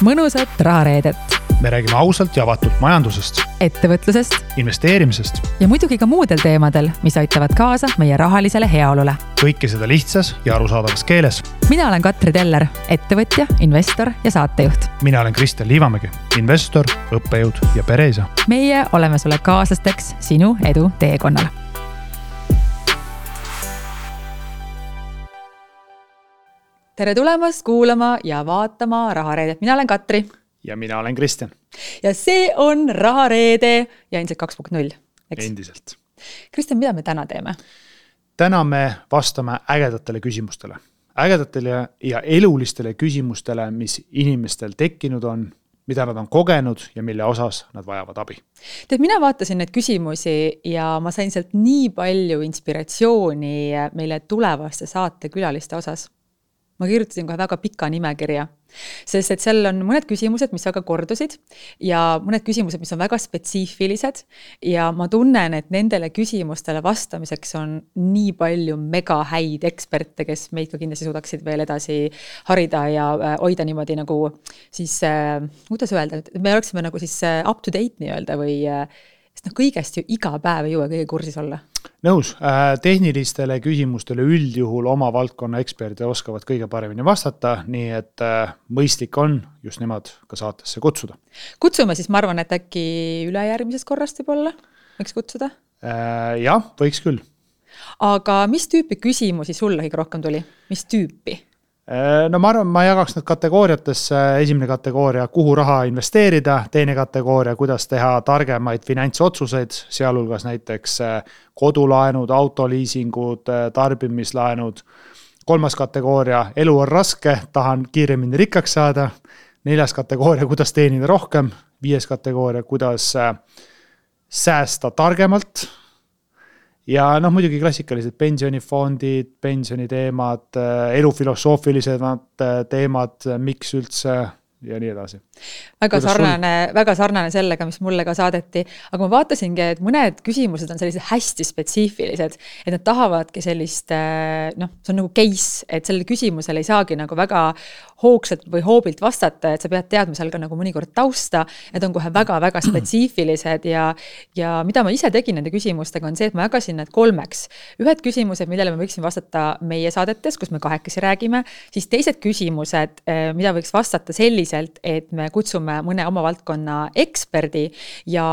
mõnusat rahareedet. Me räägime ausalt ja avatult majandusest, ettevõtlusest investeerimisest ja muidugi ka muudel teemadel, mis aitavad kaasa meie rahalisele heaolule. kõike seda lihtsas ja arusaadavas keeles. Mina olen Katri Teller, ettevõtja, investor ja saatejuht. Mina olen Kristjan Liivamägi, investor, õppejõud ja pereisa. Meie oleme sulle kaaslasteks sinu edu teekonnal. Tere tulemast kuulama ja vaatama rahareedet. Mina olen Katri. Ja mina olen Kristjan. Ja see on rahareede ja ilmselt 2.0. Endiselt. Kristjan, mida me täna teeme? Täna me vastame ägedatele küsimustele. Ägedatele ja elulistele küsimustele, mis inimestel tekkinud on, mida nad on kogenud ja mille osas nad vajavad abi. Tead, mina vaatasin neid küsimusi ja ma sain sealt nii palju inspiratsiooni meile tulevaste saate külaliste osas. Ma kirjutasin kohe väga pika nimekirja, sest et seal on mõned küsimused, mis väga kordusid ja mõned küsimused, mis on väga spetsiifilised ja ma tunnen, et nendele küsimustele vastamiseks on nii palju mega häid eksperte, kes meid ka kindlasti suudaksid veel edasi harida ja hoida niimoodi nagu siis, kuidas öelda, me oleksime nagu siis up to date nii öelda või sest kõigest ju iga päev ei jõua kõige kursis olla. Nõus, tehnilistele küsimustele üldjuhul oma valdkonna eksperdid oskavad kõige paremini vastata, nii et mõistlik on just nemad ka saatesse kutsuda. Kutsume siis, ma arvan, et äkki ülejärgmisest korrast võib-olla võiks kutsuda? Jah, võiks küll. Aga mis tüüpi küsimusi sulle kõige rohkem tuli? Mis tüüpi? No ma arvan, ma jagaks need kategooriatesse. Esimene kategooria, kuhu raha investeerida, teine kategooria, kuidas teha targemaid finantsotsuseid, sealhulgas näiteks kodulaenud, autoliisingud, tarbimislaenud. Kolmas kategooria, elu on raske, tahan kiiremini rikkaks saada. Neljas kategooria, kuidas teenida rohkem. Viies kategooria, kuidas säästa targemalt. Ja muidugi klassikalised pensionifondid, pensioniteemad, elufilosoofilised teemad, miks üldse ja nii edasi. Väga sarnane sellega, mis mulle ka saadeti, aga ma vaatasingi, et mõned küsimused on sellised hästi spetsiifilised, et nad tahavadki sellist, see on nagu case, et sellele küsimusele ei saagi nagu väga hoogsalt või hoobilt vastata, et sa pead teadma seal ka nagu mõnikord tausta, need on kohe väga-väga spetsiifilised ja mida ma ise tegin nende küsimustega on see, et ma jagasin need kolmeks. Ühed küsimused, millele ma võiksin vastata meie saadetes, kus me kahekesi räägime, siis teised küsimused, mida võiks vastata selliselt, et me kutsume mõne oma valdkonna eksperdi ja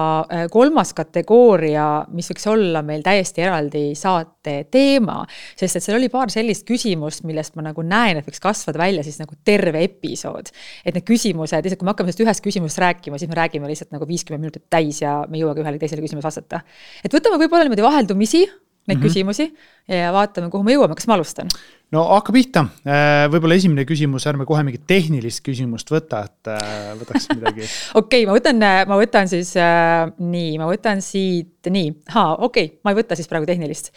kolmas kategooria, mis võiks olla meil täiesti eraldi saate teema, sest et seal oli paar sellist küsimust, millest ma nagu näen, et võiks kasvada välja siis nagu terve episood. Et need küsimused, lihtsalt kui me hakkame sellest ühest küsimusest rääkima, siis me räägime lihtsalt nagu 50 minutit täis ja me jõuagi ühele teisele küsimus vastata. Et võtame võib-olla niimoodi vaheldumisi neid küsimusi ja vaatame, kuhu me jõuame. Kas ma alustan? No hakka pihta. Võib-olla esimene küsimus, ärme kohe mingit tehnilist küsimust võta, et võtaks midagi. Okei, ma võtan siis nii, ma võtan siit nii. Okei, ma ei võta siis praegu tehnilist.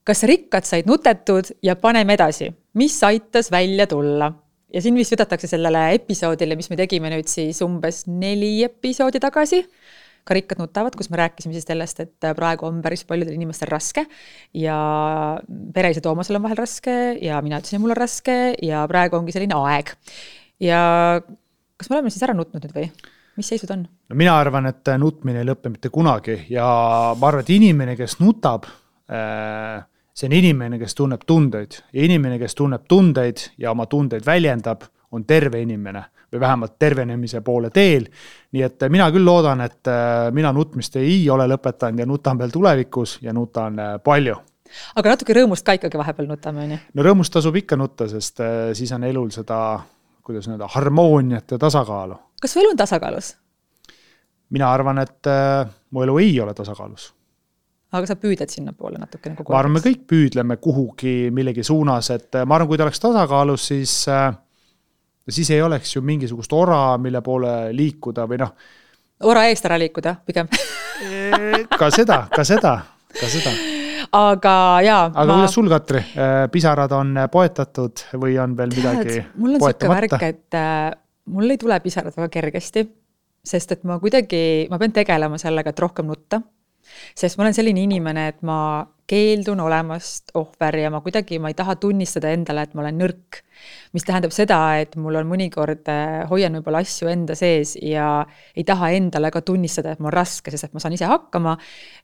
Kas rikkad said nutetud ja paneme edasi? Mis aitas välja tulla? Ja siin vist võtatakse sellele episoodile, mis me tegime nüüd siis umbes 4 episoodi tagasi. Ka rikkad nutavad, kus me rääkisime siis sellest, et praegu on päris paljudel inimestel raske ja pereisa Toomasel on vahel raske ja mina ütlesin, mul on raske ja praegu ongi selline aeg. Ja kas me oleme siis ära nutnud nüüd või? Mis seisud on? No mina arvan, et nutmine ei lõppe mitte kunagi ja ma arvan, et inimene, kes nutab, see on inimene, kes tunneb tundeid ja inimene, kes tunneb tundeid ja oma tundeid väljendab, on terve inimene või vähemalt tervenemise poole teel. Nii et mina küll loodan, et mina nutmist ei ole lõpetanud ja nutan veel tulevikus ja nutan palju. Aga natuke rõõmust ka ikkagi vahepeal nutame, on ju? No rõõmust tasub ikka nutta, sest siis on elul seda, kuidas öelda, harmooniat ja tasakaalu. Kas su elu on tasakaalus? Mina arvan, et mu elu ei ole tasakaalus. Aga sa püüded sinna poole natuke nagu ma arvan, me kõik püüdleme kuhugi millegi suunas, et ma arvan, kui ta oleks tasakaalus, siis ei oleks ju mingisugust ora, mille poole liikuda või Ora eest ära liikuda, pigem. Ka seda. Aga jaa. Aga kuidas sul, Katri? Pisarad on poetatud või on veel midagi poetamata? Mul on siuke värk, et mul ei tule pisarad väga kergesti, sest et ma pean tegelema sellega, et rohkem nutta. Sest ma olen selline inimene, et ma keeldun olemast ohver ja ma ei taha tunnistada endale, et ma olen nõrk. Mis tähendab seda, et mul on mõnikord hoian võib-olla asju enda sees ja ei taha endale ka tunnistada, et mul on raske, sest et ma saan ise hakkama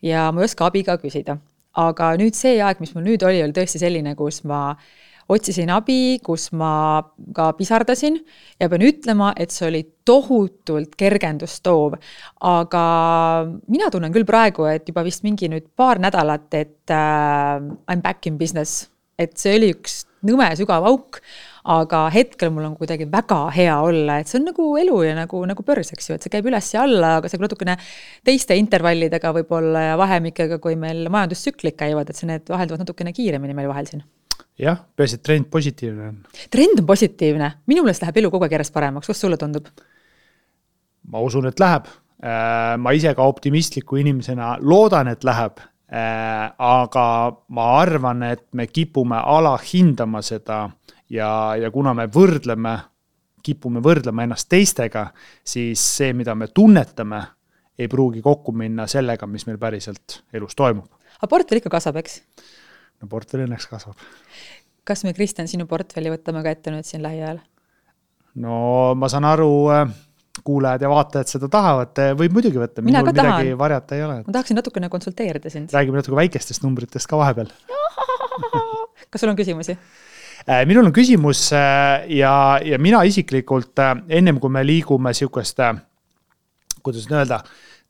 ja ma ei oska abi ka küsida. Aga nüüd see aeg, mis mul nüüd oli tõesti selline, kus ma otsisin abi, kus ma ka pisardasin ja pean ütlema, et see oli tohutult kergendust toov. Aga mina tunnen küll praegu, et juba vist mingi nüüd paar nädalat, et I'm back in business. Et see oli üks nõme sügav auk, aga hetkel mul on kuidagi väga hea olla, et see on nagu elu ja nagu börs, eks ju, et see käib üles ja alla, aga see natukene teiste intervallidega võib-olla ja vahemikega, kui meil majandustsüklid käivad, et see need vahelduvad natukene kiiremini meil vahel siin. Jah, peaasi, et trend positiivne on. Trend on positiivne. Minu meelest läheb elu kogu aeg järjest paremaks. Kas sulle tundub? Ma usun, et läheb. Ma ise ka optimistliku inimesena loodan, et läheb. Aga ma arvan, et me kipume alahindama seda ja kuna me kipume võrdlema ennast teistega, siis see, mida me tunnetame, ei pruugi kokku minna sellega, mis meil päriselt elus toimub. Aga portfell ikka kasvab, eks? No portfell õnneks kasvab. Kas me, Kristjan, sinu portfelli võtame ka ette nüüd siin lähiajal? No ma saan aru, kuulajad ja vaatajad seda tahavad, võib muidugi võtta, minul midagi varjata ei ole. Ma tahaksin natukene konsulteerida sind. Räägime natuke väikestest numbritest ka vahepeal. Kas sul on küsimusi? Minul on küsimus ja mina isiklikult, ennem kui me liigume siukest, kuidas öelda,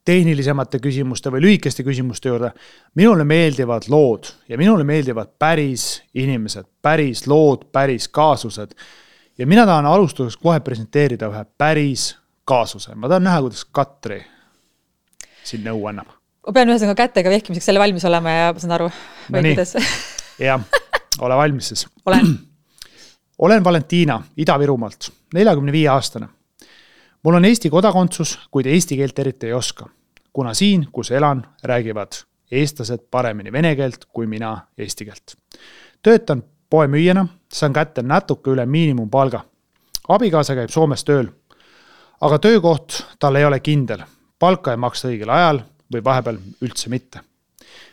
tehnilisemate küsimuste või lühikeste küsimuste juurde, minule meeldivad lood ja minule meeldivad päris inimesed, päris lood, päris kaasused. Ja mina tahan alustuseks kohe presenteerida ühe päris kaasuse. Ma tahan näha, kuidas Katri siin nõu annab. Ma pean ühesõnaga kätega vehkimiseks selle valmis olema ja ma saan aru. No nii, jah, ole valmis siis. Olen Valentina Ida-Virumaalt, 45-aastane. Mul on Eesti kodakondsus, kuid eesti keelt eriti ei oska. Kuna siin, kus elan, räägivad eestlased paremini vene keelt kui mina eesti keelt. Töötan poemüüjana, saan kätte natuke üle miinimumpalga. Abikaasa käib Soomes tööl, aga töökoht tal ei ole kindel. Palka ei maksta õigel ajal või vahepeal üldse mitte.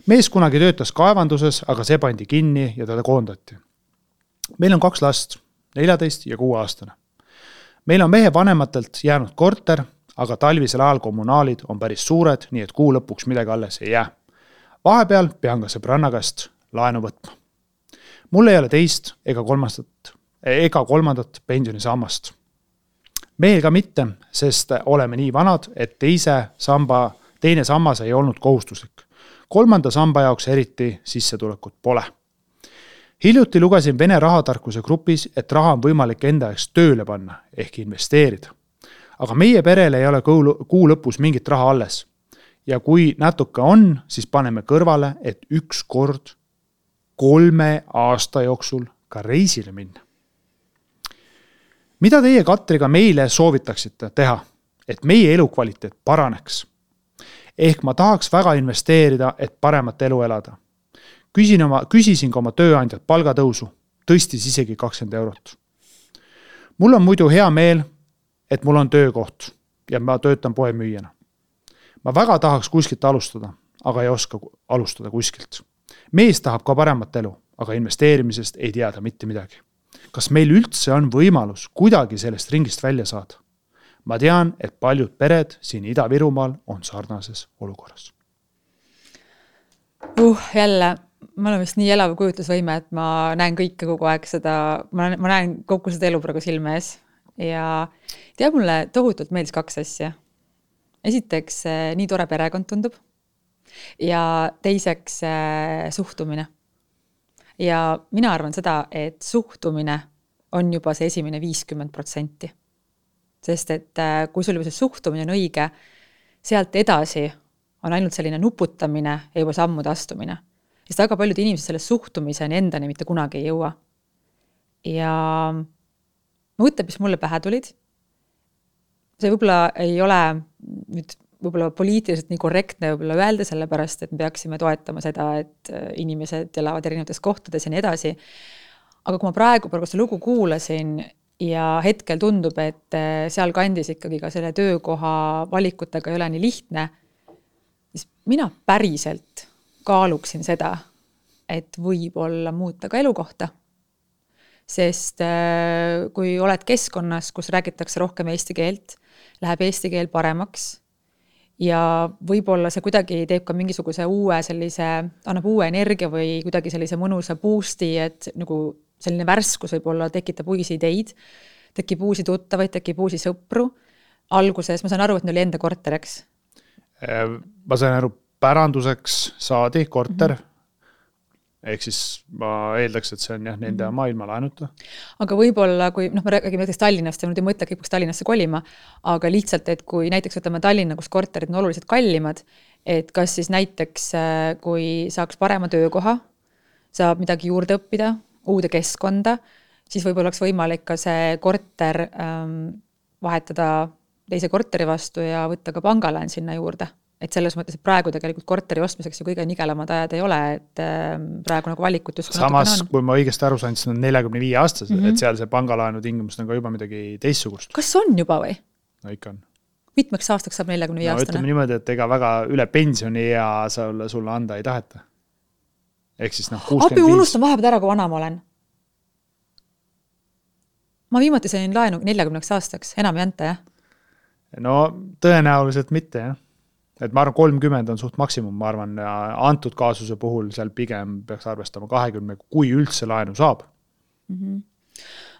Mees kunagi töötas kaevanduses, aga see pandi kinni ja teda koondati. Meil on 2 last, 14 ja 6-aastane. Meil on mehe vanematelt jäänud korter, aga talvisel ajal kommunaalid on päris suured, nii et kuu lõpuks midagi alles ei jää. Vahepeal pean ka sõbranna käest laenu võtma. Mul ei ole teist ega kolmandat pensionisammast. Meil ka mitte, sest oleme nii vanad, et teine sammas ei olnud kohustuslik. 3. samba jaoks eriti sissetulekut pole. Hiljuti lugesin Vene rahatarkuse grupis, et raha on võimalik enda jaoks tööle panna ehk investeerida. Aga meie perele ei ole kuu lõpus mingit raha alles. Ja kui natuke on, siis paneme kõrvale, et üks kord 3 aasta jooksul ka reisile minna. Mida teie, Katriga, meile soovitaksite teha, et meie elukvaliteet paraneks? Ehk ma tahaks väga investeerida, et paremat elu elada. Küsisin ka oma tööandjat palgatõusu, tõstis isegi 20 eurot. Mul on muidu hea meel, et mul on töökoht ja ma töötan poemüüjana. Ma väga tahaks kuskilt alustada, aga ei oska alustada kuskilt. Mees tahab ka paremat elu, aga investeerimisest ei teada mitte midagi. Kas meil üldse on võimalus kuidagi sellest ringist välja saada? Ma tean, et paljud pered siin Ida-Virumaal on sarnases olukorras. Jälle, ma olen vist nii elav kujutlusvõime, et ma näen kõike kogu aeg seda, ma näen kogu seda elu praegu silme ees. Ja mulle tohutult meeldis 2 asja. Esiteks, nii tore perekond tundub. Ja teiseks, suhtumine. Ja mina arvan seda, et suhtumine on juba see esimene 50%. Sest et kui sul juba see suhtumine on õige, sealt edasi on ainult selline nuputamine ja juba sammude astumine. Sest väga paljud inimesed selle suhtumiseni endani mitte kunagi ei jõua. Ja mõtleb, mis mulle pähe tulid. See võib-olla ei ole nüüd võib-olla poliitiliselt nii korrektne võib-olla öelda, sellepärast, et me peaksime toetama seda, et inimesed elavad erinevates kohtades ja nii edasi. Aga kui ma praegu seda lugu kuulasin ja hetkel tundub, et seal kandis ikkagi ka selle töökoha valikutega ei ole nii lihtne, siis mina päriselt kaaluksin seda, et võib-olla muuta ka elukohta. Sest kui oled keskkonnas, kus räägitakse rohkem eesti keelt, läheb eesti keel paremaks ja võib-olla see kuidagi teeb ka mingisuguse uue sellise, annab uue energia või kuidagi sellise mõnusa boost'i, et nagu selline värskus võib-olla tekitab uusi ideid, tekib uusi tuttavaid, tekib uusi sõpru. Alguses ma saan aru, et neil oli enda korter, eks? Ma sain aru, päranduseks saadi korter, ehk siis ma eeldaks, et see on jah, nende maailma laenuta. Aga võib-olla, kui me räägime näiteks Tallinnast ja nüüd ei mõtle, kõik Tallinnasse kolima, aga lihtsalt, et kui näiteks võtame Tallinna, kus korterid on oluliselt kallimad, et kas siis näiteks, kui saaks parema töökoha, saab midagi juurde õppida, uude keskkonda, siis võib-olla oleks võimalik ka see korter vahetada teise korteri vastu ja võtta ka pangalaan sinna juurde. Et selles mõttes, et praegu tegelikult korteri ostmiseks ju kõige nigelamad ajad ei ole, et praegu nagu valikut just samas, kui ma õigesti aru sain, siis on 45 aastased, et seal see pangalaenu tingimus on ka juba midagi teissugust. Kas on juba või? No ikka on. Mitmeks aastaks saab 45 aastane? Ütleme niimoodi, et ega väga üle pensioni ja sulle anda ei taheta. Ehk siis 65. Abi unustan vahepeal ära, kui vana ma olen. Ma viimati sain laenu 40 aastaks, enam ei anta, jah? No tõenäoliselt mitte, jah. Et ma arvan, 30 on suht maksimum, ma arvan, antud kaasuse puhul seal pigem peaks arvestama 20, kui üldse laenu saab.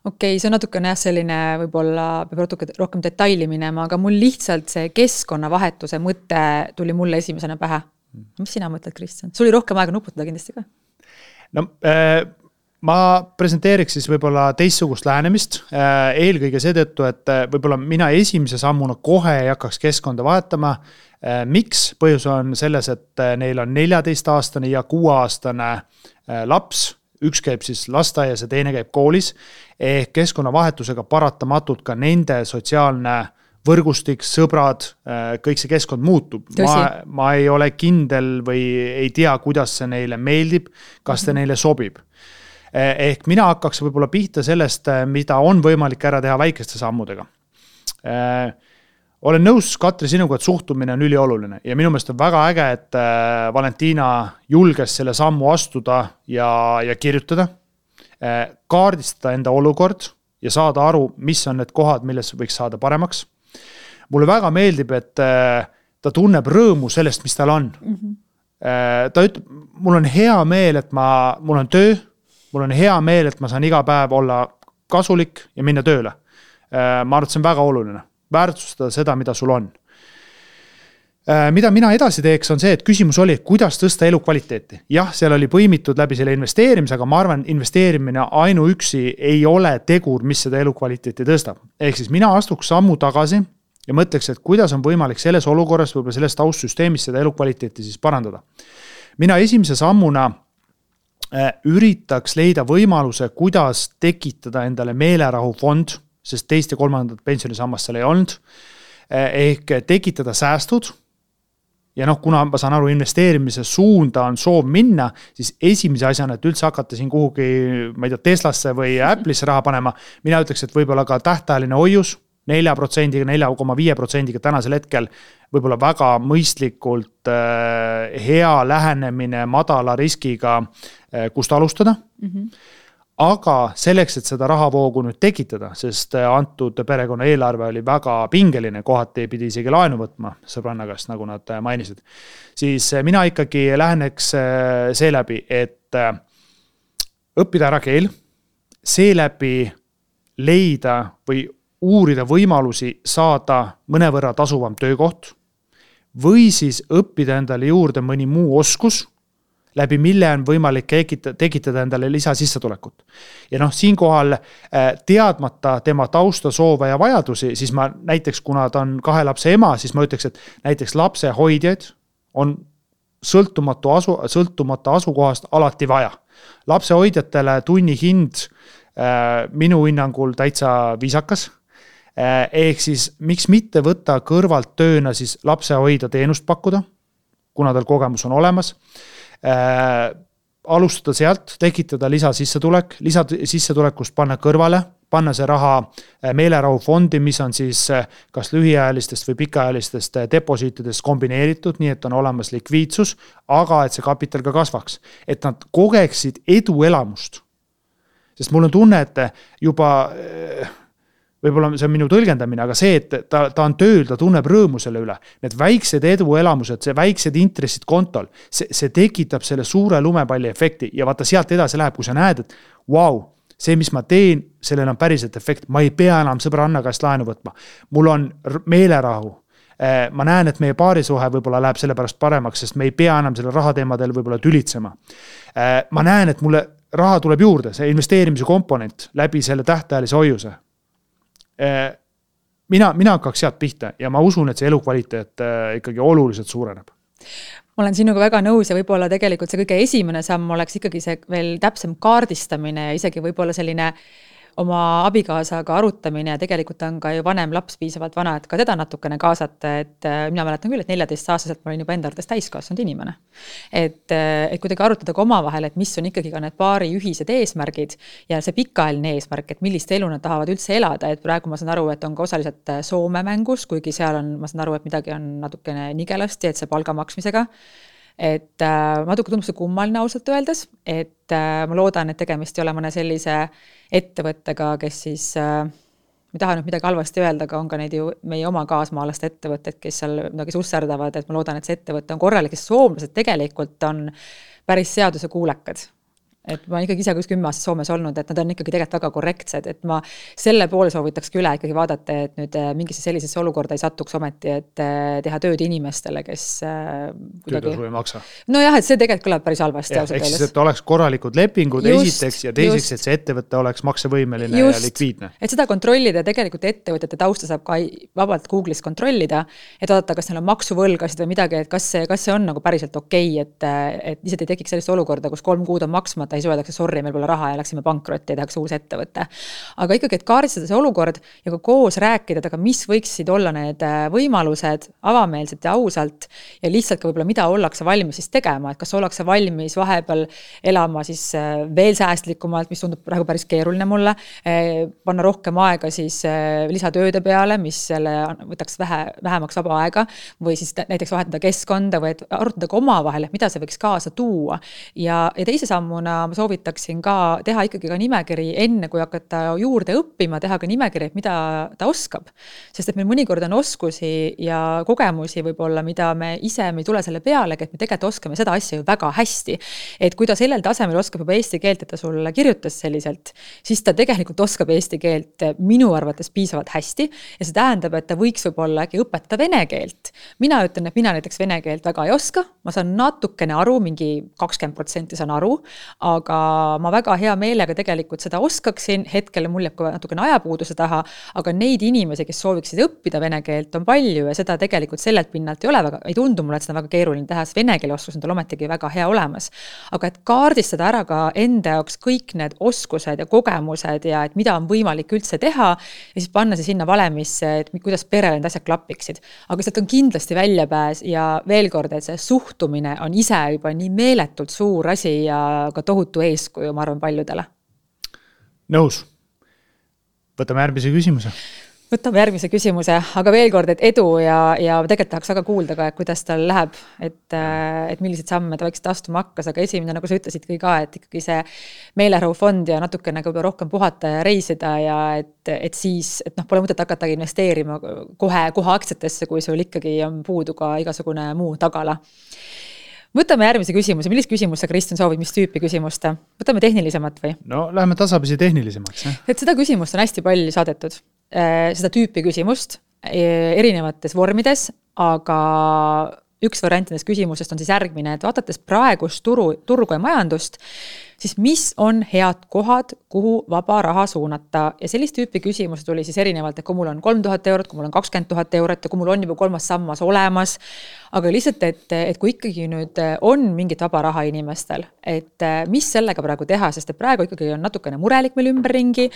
Okei, see on natukene selline, võib-olla peab rohkem detaili minema, aga mul lihtsalt see keskkonnavahetuse mõte tuli mulle esimesena pähe. Mis sina mõtled, Kristjan? Sul oli rohkem aega nuputada kindlasti ka? No, ma presenteeriks siis võib-olla teissugust lähenemist, eelkõige seetõttu, et võib-olla mina esimese sammuna kohe ei hakkaks keskkonda vahetama. Miks? Põhjus on selles, et neil on 14-aastane ja 6-aastane laps, üks käib siis lasteaias ja teine käib koolis, ehk keskkonnavahetusega paratamatult ka nende sotsiaalne võrgustik, sõbrad, kõik see keskkond muutub. Ma ei ole kindel või ei tea, kuidas see neile meeldib, kas see neile sobib. Ehk mina hakkaks võib-olla pihta sellest, mida on võimalik ära teha väikeste sammudega. Olen nõus, Katri, sinuga, et suhtumine on ülioluline ja minu meelest on väga äge, et Valentina julges selle sammu astuda ja kirjutada, kaardistada enda olukord ja saada aru, mis on need kohad, milles võiks saada paremaks. Mulle väga meeldib, et ta tunneb rõõmu sellest, mis tal on. Ta ütleb, mul on hea meel, et mul on töö, mul on hea meel, et ma saan iga päev olla kasulik ja minna tööle. Ma arvan, et see on väga oluline. Väärtustada seda, mida sul on. Mida mina edasi teeks on see, et küsimus oli, kuidas tõsta elukvaliteeti. Jah, seal oli põimitud läbi selle investeerimise, aga ma arvan, investeerimine ainuüksi ei ole tegur, mis seda elukvaliteeti tõstab. Ehk siis mina astuks sammu tagasi ja mõtleks, et kuidas on võimalik selles olukorras võib-olla selles taustsüsteemis seda elukvaliteeti siis parandada. Mina esimese sammuna üritaks leida võimaluse, kuidas tekitada endale meelerahufond, sest teist ja kolmandat pensionisammast seal ei olnud, ehk tekitada säästud ja kuna ma saan aru, investeerimise suunda on soov minna, siis esimese asjana, et üldse hakata siin kuhugi, ma ei tea, Teslasse või Apple'isse raha panema, mina ütleks, et võib-olla ka tähtajaline hoius 4%, 4,5% tänasel hetkel võib-olla väga mõistlikult hea lähenemine madala riskiga, kust alustada. Aga selleks, et seda rahavoogu nüüd tekitada, sest antud perekonna eelarve oli väga pingeline, kohati ei pidi isegi laenu võtma sõbranna käest, nagu nad mainisid, siis mina ikkagi läheneks seeläbi, et õppida ära keel, seeläbi leida või uurida võimalusi saada mõnevõrra tasuvam töökoht või siis õppida endale juurde mõni muu oskus, läbi mille on võimalik tekitada endale lisasissetulekut. Ja siinkohal teadmata tema tausta, soove ja vajadusi, siis ma näiteks, kuna ta on 2 lapse ema, siis ma ütleks, et näiteks lapse hoidjaid on sõltumata asukohast alati vaja. Lapse hoidjatele tunni hind minu hinnangul täitsa viisakas. Ehk siis miks mitte võtta kõrvalt tööna siis lapse hoida teenust pakkuda, kuna tal kogemus on olemas. Alustada sealt, tekitada lisasissetulekust panna kõrvale panna see raha meelerahufondi, mis on siis kas lühiajalistest või pikaajalistest deposiitidest kombineeritud, nii et on olemas likviidsus, aga et see kapital ka kasvaks. Et nad kogeksid eduelamust. Sest mul on tunne, et juba, võib-olla see on minu tõlgendamine, aga see, et ta on tööl, ta tunneb rõõmu selle üle. Need väiksed eduelamused, see väiksed intressid kontol, see tekitab selle suure lumepalli efekti ja vaata sealt edasi läheb, kui sa näed, et wow, see, mis ma teen, sellel on päriselt efekt. Ma ei pea enam sõbranna käest laenu võtma. Mul on meelerahu. Ma näen, et meie paarisuhe võib-olla läheb selle pärast paremaks, sest me ei pea enam selle rahateemadel võib-olla tülitsema. Ma näen, et mulle raha tuleb juurde, see investeerimise komponent läbi selle tähtajalise hoiuse. Mina hakkaks sealt pihta ja ma usun, et see elukvaliteet ikkagi oluliselt suureneb. Ma olen sinuga väga nõus ja võib-olla tegelikult see kõige esimene samm oleks ikkagi see veel täpsem kaardistamine ja isegi võib-olla selline oma abikaasaga arutamine ja tegelikult on ka ju vanem laps piisavalt vana, et ka teda natukene kaasata, et mina mäletan küll, et 14-aastaselt ma olin juba enda arvates täiskasvanud inimene. Et kuidagi arutada ka omavahel, et mis on ikkagi ka need paari ühised eesmärgid ja see pikaajaline eesmärk, et millist elu nad tahavad üldse elada, et praegu ma saan aru, et on ka osaliselt Soome mängus, kuigi seal on, ma saan aru, et midagi on natukene nigelasti, et see palga maksmisega. Et natuke tundub see kummaline ausalt öeldes, et ma loodan, et tegemist ei ole mõne sellise ettevõttega, kes siis, ma tahan nüüd midagi halvasti öelda, aga on ka neid ju meie oma kaasmaalaste ettevõtted, kes seal midagi susserdavad, et ma loodan, et see ettevõte on korralik, kes soomlased tegelikult on päris seaduse kuulekad. Et ma ikkagi ise 10 aastat Soomes olnud, et nad on ikkagi tegelikult väga korrektsed, et ma selle poole soovitakski üle ikkagi vaadata, et nüüd mingisse sellisesse olukorda ei satuks ometi, et teha tööd inimestele, kes töötasu ei maksa. No jah, et see tegelikult kõlab päris halvasti. Ehk siis, et oleks korralikud lepingud esiteks ja teiseks, et see ettevõte oleks maksevõimeline ja likviidne. Et seda kontrollida tegelikult ettevõtete tausta saab ka vabalt Google'is kontrollida, et vaadata, kas neil on maksuvõlgasid või midagi, et kas see on nagu päriselt okei, et lihtsalt ei tekiks sellist olukorda, kus 3 kuud on maksmata ei öeldakse, sorry, meil pole raha ja läksime pankrotti ja tehakse uus ettevõte. Aga ikkagi, et kaardistada see olukord ja ka koos rääkida, aga mis võiksid olla need võimalused avameelselt ja ausalt ja lihtsalt ka võib-olla mida ollakse valmis siis tegema, et kas ollakse valmis vahepeal elama siis veel säästlikumalt, mis tundub praegu päris keeruline mulle, panna rohkem aega siis lisatööde peale, mis selle võtaks vähemaks vaba aega või siis näiteks vahetada keskkonda või arutada ka omavahel, et mida see võiks kaasa tuua ja teise sammuna ma soovitaksin ka teha ikkagi ka nimekiri enne, kui hakata juurde õppima, teha ka nimekiri, et mida ta oskab. Sest et meil mõnikord on oskusi ja kogemusi võib-olla, mida me ise ei tule selle peale, et me tegelikult oskame seda asja ju väga hästi. Et kui ta sellel tasemel oskab juba eesti keelt, et ta sulle kirjutas selliselt, siis ta tegelikult oskab eesti keelt minu arvates piisavalt hästi ja see tähendab, et ta võiks võib-olla äkki õpetada vene keelt. Mina ütlen, et mina näiteks vene keelt väga ei oska, ma saan natukene aru, mingi 20% saan aru, aga ma väga hea meelega tegelikult seda oskaksin, hetkel mul jääb ka natukene ajapuuduse taha, aga neid inimesi, kes sooviksid õppida vene keelt, on palju ja seda tegelikult sellelt pinnalt ei ole väga, ei tundu mulle, et seda väga keeruline teha, sest vene keele oskus on tal ometigi väga hea olemas. Aga et kaardistada ära ka enda jaoks kõik need oskused ja kogemused ja et mida on võimalik üldse teha ja siis panna see sinna valemisse, et kuidas perele need asjad klapiksid. Aga sealt on kindlasti väljapääs ja veel kord, et see suhtumine on ise juba nii meeletult suur asi ja ka tohutu eeskuju, ma arvan, paljudele. Nõus. Võtame järgmise küsimuse, aga veel kord, et edu ja tegelikult tahaks väga kuulda ka, kuidas tal läheb, et millised samme ta võiks astuma hakkas, aga esimene, nagu sa ütlesid ka, et ikkagi see meelerahufond ja natukene rohkem puhata ja reisida ja et siis, et pole mõtet hakata investeerima kohe aktsiatesse, kui sul ikkagi on puudu ka igasugune muu tagala. Võtame järgmise küsimuse. Millist küsimus sa, Kristjan, soovid, mis tüüpi küsimust? Võtame tehnilisemat või? No, läheme tasapisi tehnilisemaks. Et seda küsimust on hästi palju saadetud. Seda tüüpi küsimust erinevates vormides, aga üks variant nendest küsimusest on siis järgmine, et vaadates praegust turgu ja majandust, siis mis on head kohad, kuhu vaba raha suunata. Ja sellist tüüpi küsimus tuli siis erinevalt, et kui mul on 3000 eurot, kui mul on 20 000 eurot ja kui mul on juba 3. sammas olemas. Aga lihtsalt, et kui ikkagi nüüd on mingit vaba raha inimestel, et mis sellega praegu teha, sest et praegu ikkagi on natukene murelik meil ümberringi,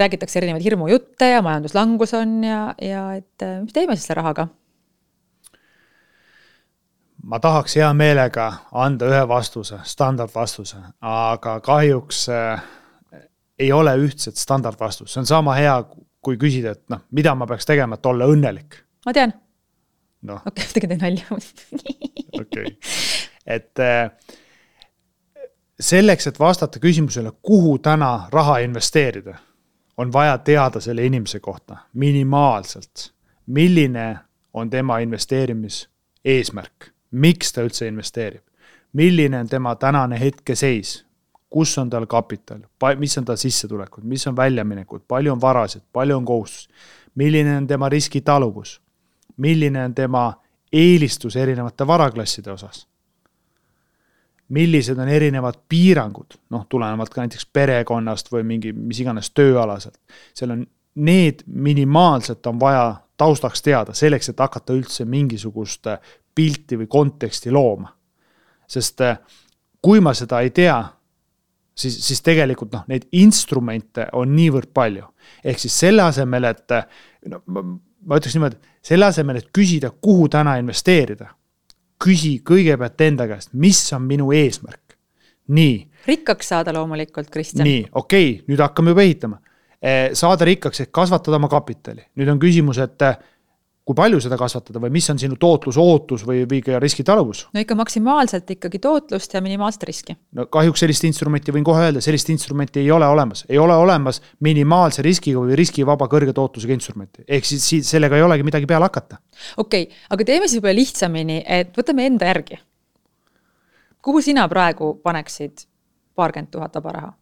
räägitakse erinevaid hirmujutte ja majanduslangus on ja et mis teeme siis selle rahaga? Ma tahaks hea meelega anda ühe vastuse, standardvastuse, aga kahjuks ei ole ühtset standardvastust, see on sama hea, kui küsida, et noh, mida ma peaks tegema, et olla õnnelik. Ma tean. No. Okei, tegin nalja. Okei. Et selleks, et vastata küsimusele, kuhu täna raha investeerida, on vaja teada selle inimese kohta minimaalselt, milline on tema investeerimis eesmärk, miks ta üldse investeerib, milline on tema tänane hetkeseis, kus on tal kapital, mis on tal sissetulekud, mis on väljaminekud, palju on varasid, palju on kohustus, milline on tema riskitaluvus, milline on tema eelistus erinevate varaklasside osas, millised on erinevad piirangud, noh, tulenevalt ka näiteks perekonnast või mingi, mis iganes tööalaselt. Seal on need minimaalselt on vaja taustaks teada, selleks, et hakata üldse mingisugust pilti või konteksti looma. Sest kui ma seda ei tea, siis tegelikult noh, neid instrumente on niivõrd palju. Ehk siis selle asemel, et no, ma ütleks niimoodi, selle asemel, et küsida, kuhu täna investeerida, küsi kõigepealt enda käest, mis on minu eesmärk. Nii. Rikkaks saada loomulikult, Kristjan. Nii, okei, nüüd hakkame juba ehitama. Saada rikkaks, et kasvatada oma kapitali. Nüüd on küsimus, et kui palju seda kasvatada või mis on sinu tootlus, ootus või ka riskitaluvus? No ikka maksimaalselt ikkagi tootlust ja minimaalset riski. No kahjuks sellist instrumenti võin kohe öelda, sellist instrumenti ei ole olemas. Ei ole olemas minimaalse riskiga või riskivaba kõrge tootlusega instrumenti. Ehk siis sellega ei olegi midagi peale hakata. Okei, aga teeme siis võib-olla lihtsamini, et võtame enda järgi. Kuhu sina praegu paneksid 20 000 vaba raha?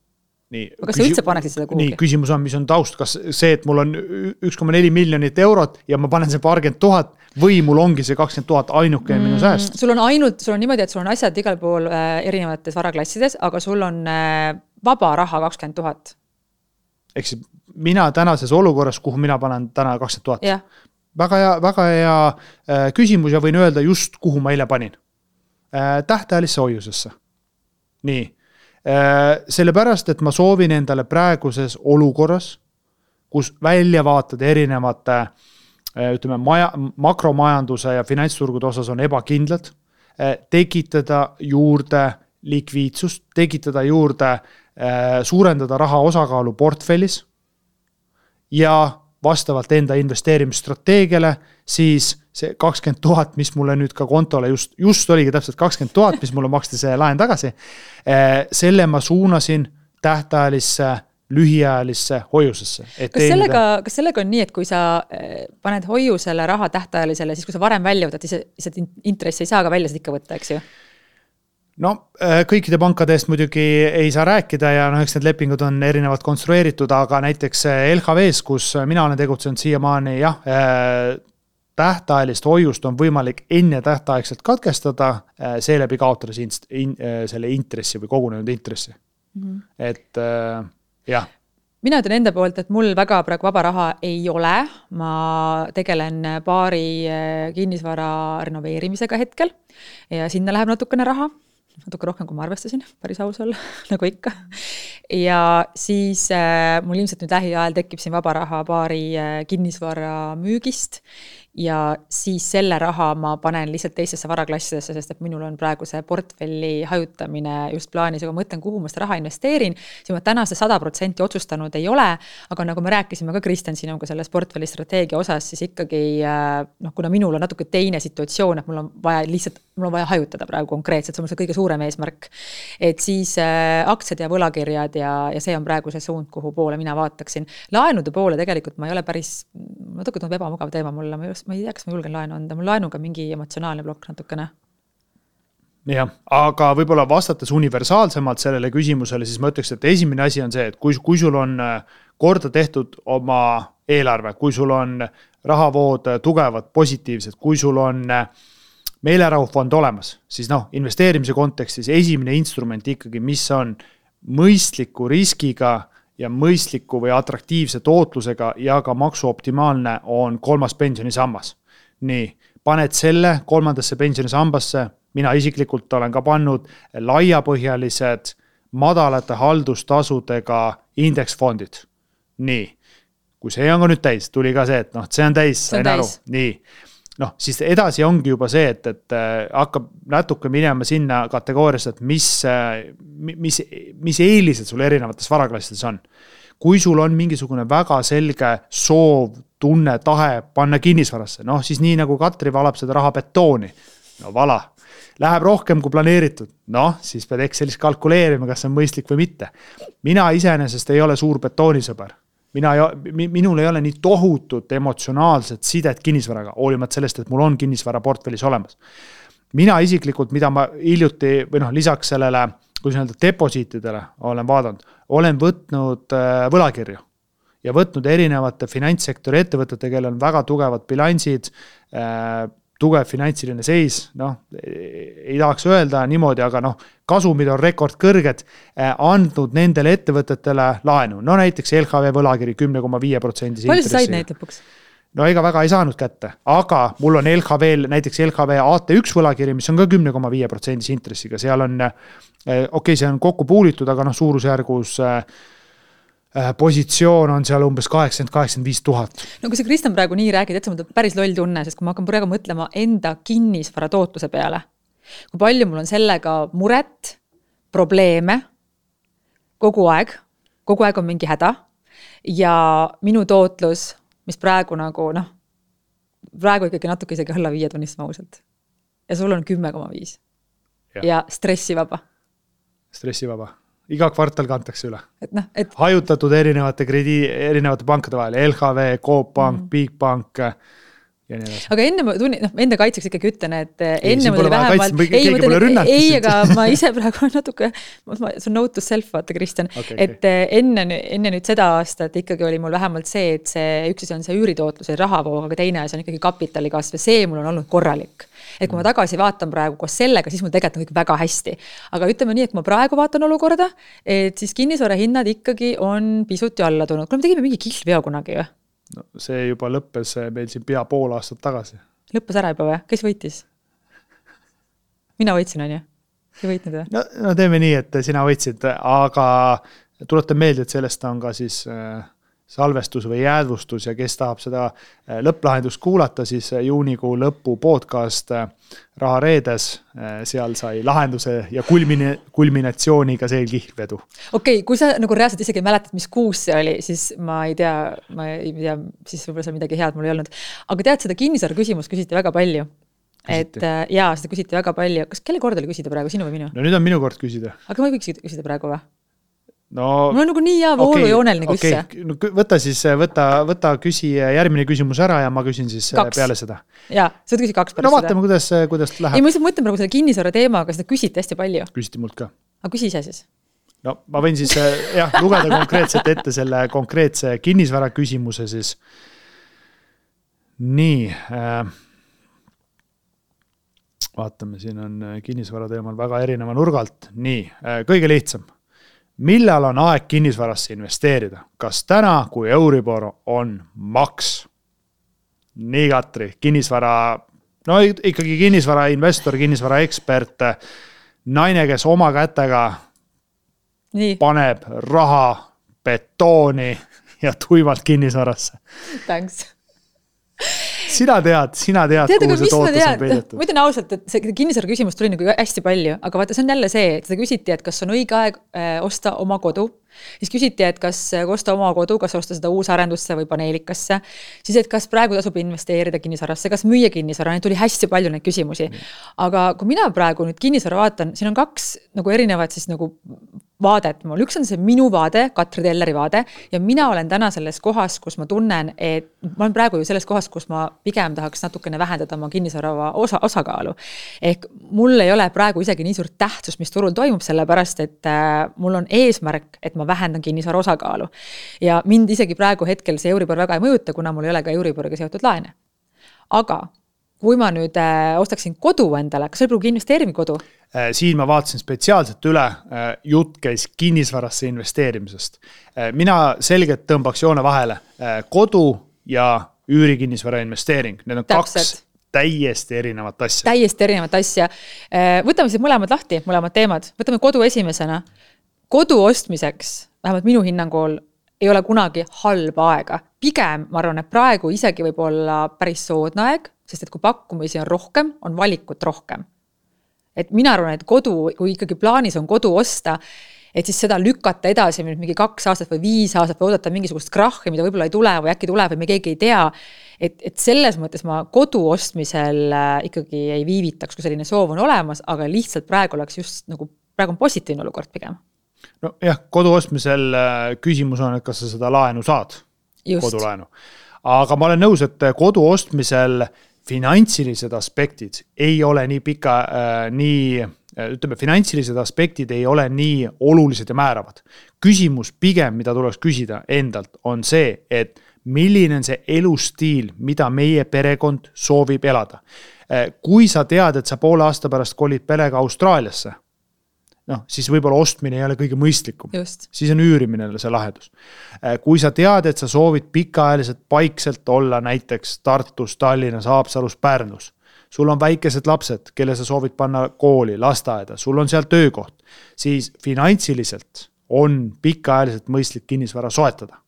Nii, kas sa üldse paneksid seda kuhugi? Nii, küsimus on, mis on taust, kas see, et mul on 1,4 miljonit eurot ja ma panen see 20 000 või mul ongi see 20 000 ainuke minu sääst? Sul on niimoodi, et sul on asjad igal pool erinevates varaklassides, aga sul on vaba raha 20 000. Ehk siis mina tänases olukorras, kuhu mina panen täna 20 000. Ja. Väga hea küsimus ja võin öelda just, kuhu ma eile panin. Tähtajalisse hoiusesse. Nii. Sellepärast, et ma soovin endale praeguses olukorras, kus väljavaatad erinevate ütleme, makromajanduse ja finantsturgude osas on ebakindlad, tekitada juurde likviidsust, tekitada juurde, suurendada raha osakaalu portfellis ja vastavalt enda investeerimisstrateegiale, siis see 20 000, mis mulle nüüd ka kontole just oligi täpselt 20 000, mis mulle maksti see laen tagasi, selle ma suunasin tähtajalisse, lühiajalisse hoiusesse. Kas sellega on nii, et kui sa paned hoiusele raha tähtajalisele, siis kui sa varem välja võtad, siis intressi ei saa ka välja ikka võtta, eks ju? No kõikide pankade eest muidugi ei saa rääkida ja eks need lepingud on erinevalt konstrueeritud, aga näiteks LHV-s, kus mina olen tegutsenud siiamaani, jah, tähtajalist hoiust on võimalik enne tähtaegselt katkestada, seeläbi kaotada selle intressi või kogunenud intressi. Et jah. Mina ütlen enda poolt, et mul väga praegu vaba raha ei ole. Ma tegelen paari kinnisvara renoveerimisega hetkel ja sinna läheb natukene raha. Natuke rohkem, kui ma arvestasin, päris aus olla, nagu ikka. Ja siis mul ilmselt nüüd lähiajal tekib siin vaba raha paari kinnisvara müügist ja siis selle raha ma panen lihtsalt teistesse varaklassidesse, sest et minul on praegu see portfelli hajutamine just plaanis, aga mõtlen, kuhu ma seda raha investeerin, siis ma täna see 100% otsustanud ei ole, aga nagu me rääkisime ka Kristjan sinuga selles portfelli strateegia osas, siis ikkagi, kuna minul on natuke teine situatsioon, et mul on vaja hajutada praegu konkreetselt, see on see kõige suurem eesmärk, et siis aktsiad ja võlakirjad ja see on praegu see suund, kuhu poole mina vaataksin. Laenude poole tegelikult ma ei ole päris, natuke tundub ebamugav teema mulle, ma ei tea, kas ma julgen laenu anda, mul laenuga mingi emotsionaalne plokk natukene. Jah, aga võib-olla vastates universaalsemalt sellele küsimusele, siis ma ütleks, et esimene asi on see, et kui sul on korda tehtud oma eelarve, kui sul on rahavood tugevad, positiivsed, kui sul on meelerahufond olemas, siis investeerimise kontekstis esimene instrument ikkagi, mis on mõistliku riskiga ja mõistliku või atraktiivse tootlusega ja ka maksuoptimaalne on 3. pensionisammas. Nii, paned selle 3. pensionisambasse, mina isiklikult olen ka pannud laiapõhjalised madalate haldustasudega indeksfondid. Nii, kui see on ka nüüd täis, tuli ka see, et see on täis, sain aru. Nii, noh, siis edasi ongi juba see, et hakkab natuke minema sinna kategooriasse, et mis eelised sul erinevates varaklassides on. Kui sul on mingisugune väga selge soov, tunne, tahe panna kinnisvarasse, noh siis nii nagu Katri valab seda raha betooni, no vala, läheb rohkem kui planeeritud, noh siis pead Excelis kalkuleerima, kas see on mõistlik või mitte. Mina iseenesest ei ole suur betoonisõber. Minul ei ole nii tohutut emotsionaalset sidet kinnisvaraga, hoolimata sellest, et mul on kinnisvara portfellis olemas. Mina isiklikult, mida ma hiljuti, või noh, lisaks sellele, kui öelda deposiitidele olen vaadanud, olen võtnud võlakirju ja võtnud erinevate finantssektori ettevõtete, kellel on väga tugevad bilansid, tugev finantsiline seis, noh, ei tahaks öelda niimoodi, aga noh, kasumid on rekordkõrged, andnud nendele ettevõtetele laenu. No näiteks LHV võlakiri 10,5% palju sa said neid lõpuks? No ega väga ei saanud kätte, aga mul on näiteks LHV AT1 võlakiri, mis on ka 10,5% intressiga, seal on, see on kokku puulitud, aga noh, suurusjärgus positsioon on seal umbes 80-85 000. No kui sa Kristjan praegu nii räägid, et see on päris loll tunne, sest kui ma hakkan praegu mõtlema enda kinnisvara tootluse peale, kui palju mul on sellega muret, probleeme, kogu aeg on mingi häda ja minu tootlus, mis praegu nagu noh, praegu ikkagi natuke isegi alla 5 tunnistama ausalt. Ja sul on 10,5 ja stressivaba. Stressivaba. Iga kvartal kantakse üle. Et hajutatud erinevate pankade vahel, LHV, Coop Pank, Bigbank ja nii edasi. Aga enne ma enda kaitseks ikkagi ütlen, et enne mul oli vähemalt aga ma ise praegu natuke see on note to self, vaata Kristjan, et enne nüüd seda aastat ikkagi oli mul vähemalt see, et see üks on see üüritootlus ja rahavoog, aga teine see on ikkagi kapitali kasv ja see mul on olnud korralik. Et kui ma tagasi vaatan praegu koos sellega, siis mul tegelikult on kõik väga hästi. Aga ütleme nii, et kui ma praegu vaatan olukorda, et siis kinnisvara hinnad ikkagi on pisut ju alla tulnud. Kui me tegime mingi kihlveo kunagi ju? No, see juba lõppes meil siin pea pool aastat tagasi. Lõppes ära juba või? Kes võitis? Mina võitsin, on ju? Ei võitnud või? No teeme nii, et sina võitsid, aga tuletan meelde, et sellest on ka siis salvestus või jäädvustus ja kes tahab seda lõpplahendust kuulata, siis juunikuu lõpu podcast Raha reedes, seal sai lahenduse ja kulminatsiooniga see kihlvedu. Okei, kui sa nagu reaalselt isegi mäletad, mis kuus see oli, siis ma ei tea, siis võib-olla seal midagi head mul ei olnud. Aga tead, seda kinnisvara küsimust küsiti väga palju. Küsiti. Et jaa, seda küsiti väga palju. Kas kelle kord oli küsida praegu, sinu või minu? No nüüd on minu kord küsida. Aga ma ei võiks küsida praegu või? No, mul on nagu nii hea voolujooneline küsija. No, võta siis, võta küsi järgmine küsimus ära ja ma küsin siis 2. Peale seda. Jaa, sa võid küsi 2 pärast seda. No vaatame, kuidas läheb. Ei, ma lihtsalt mõtlen praegu selle kinnisvara teemaga, seda küsiti hästi palju. Küsiti mult ka. Aga küsi ise siis. No ma võin siis lugeda konkreetselt ette selle konkreetse kinnisvara küsimuse siis. Nii. Vaatame, siin on kinnisvara teemal väga erineva nurgalt. Nii, kõige lihtsam. Millal on aeg kinnisvarasse investeerida? Kas täna, kui Euribor on maks? Nii Katri, kinnisvara, no ikkagi kinnisvara investor, kinnisvara ekspert, naine, kes oma kätega paneb raha betooni ja tuimalt kinnisvarasse. Thanks. Sina tead, kuhu see tootlus on peidetud. Ma ütlen ausalt, et see kinnisvara küsimus tuli nagu hästi palju, aga vaata, see on jälle see, et seda küsiti, et kas on õige aeg osta oma kodu. Siis küsiti, et kas osta oma kodu, kas osta seda uusarendusse või paneelikasse. Siis, et kas praegu tasub investeerida kinnisvarasse, kas müüa kinnisvara, neid tuli hästi palju neid küsimusi. Aga kui mina praegu nüüd kinnisvara vaatan, siin on 2 nagu erinevad siis nagu vaadet mul. Üks on see minu vaade, Katri Telleri vaade ja mina olen täna selles kohas, kus ma tunnen, et ma olen praegu ju selles kohas, kus ma pigem tahaks natukene vähendada oma kinnisvara osakaalu. Ehk mul ei ole praegu isegi nii suurt tähtsust, mis turul toimub, sellepärast, et mul on eesmärk, et ma vähendan kinnisvara osakaalu. Ja mind isegi praegu hetkel see Euribor väga ei mõjuta, kuna mul ei ole ka Euriboriga seotud laene. Aga kui ma nüüd ostaksin kodu endale, kas see pruugi investeerimi kodu? Siin ma vaatasin spetsiaalselt üle, jutt käis kinnisvarasse investeerimisest. Mina selgelt tõmbaks joone vahele kodu ja üürikinnisvara investeering. Need on Täpselt. 2 täiesti erinevat asja. Täiesti erinevat asja. Võtame siis mõlemad lahti, mõlemad teemad. Võtame kodu esimesena. Kodu ostmiseks, vähemalt minu hinnangul, ei ole kunagi halba aega. Pigem, ma arvan, et praegu isegi võib olla päris soodne aeg sest et kui pakkumisi on rohkem, on valikut rohkem. Et mina arvan, et kodu, kui ikkagi plaanis on kodu osta, et siis seda lükata edasi mingi 2 aastat või 5 aastat või oodata mingisugust krahhi, mida võib-olla ei tule või äkki tuleb või me keegi ei tea. Et selles mõttes ma kodu ostmisel ikkagi ei viivitaks, kui selline soov on olemas, aga lihtsalt praegu oleks just nagu, praegu on positiivne olukord pigem. No jah, kodu ostmisel küsimus on, et kas sa seda laenu saad, kodulaenu. Aga ma olen nõus, et kodu ostmisel finantsilised aspektid ei ole nii pika, ütleme, finantsilised aspektid ei ole nii olulised ja määravad. Küsimus pigem, mida tuleks küsida endalt, on see, et milline on see elustiil, mida meie perekond soovib elada. Kui sa tead, et sa poole aasta pärast kolid perega Austraaliasse, siis võib-olla ostmine ei ole kõige mõistlikum. Just. Siis on üürimine see lahendus. Kui sa tead, et sa soovid pikaajaliselt paikselt olla näiteks Tartus, Tallinnas, Haapsalus, Pärnus, sul on väikesed lapsed, kelle sa soovid panna kooli, lasteaeda, sul on seal töökoht, siis finantsiliselt on pikaajaliselt mõistlik kinnisvara soetada.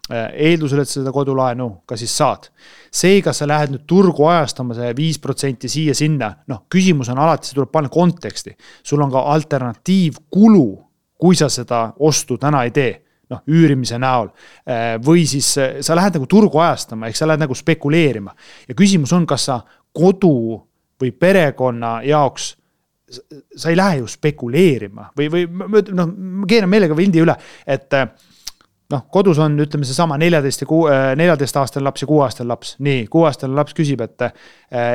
Eeldusel, et seda kodulaenu ka siis saad. See, kas sa lähed nüüd turgu ajastama see 5% siia sinna, küsimus on alati, see tuleb panna konteksti. Sul on ka alternatiivkulu, kui sa seda ostu täna ei tee, üürimise näol. Või siis sa lähed nagu turgu ajastama, ehk sa lähed nagu spekuleerima. Ja küsimus on, kas sa kodu või perekonna jaoks sa ei lähe ju spekuleerima või ma keeran meelega vildi üle, et kodus on, ütleme see sama 14 aastane laps ja 6 aastane laps. Nii, 6 aastane laps küsib, et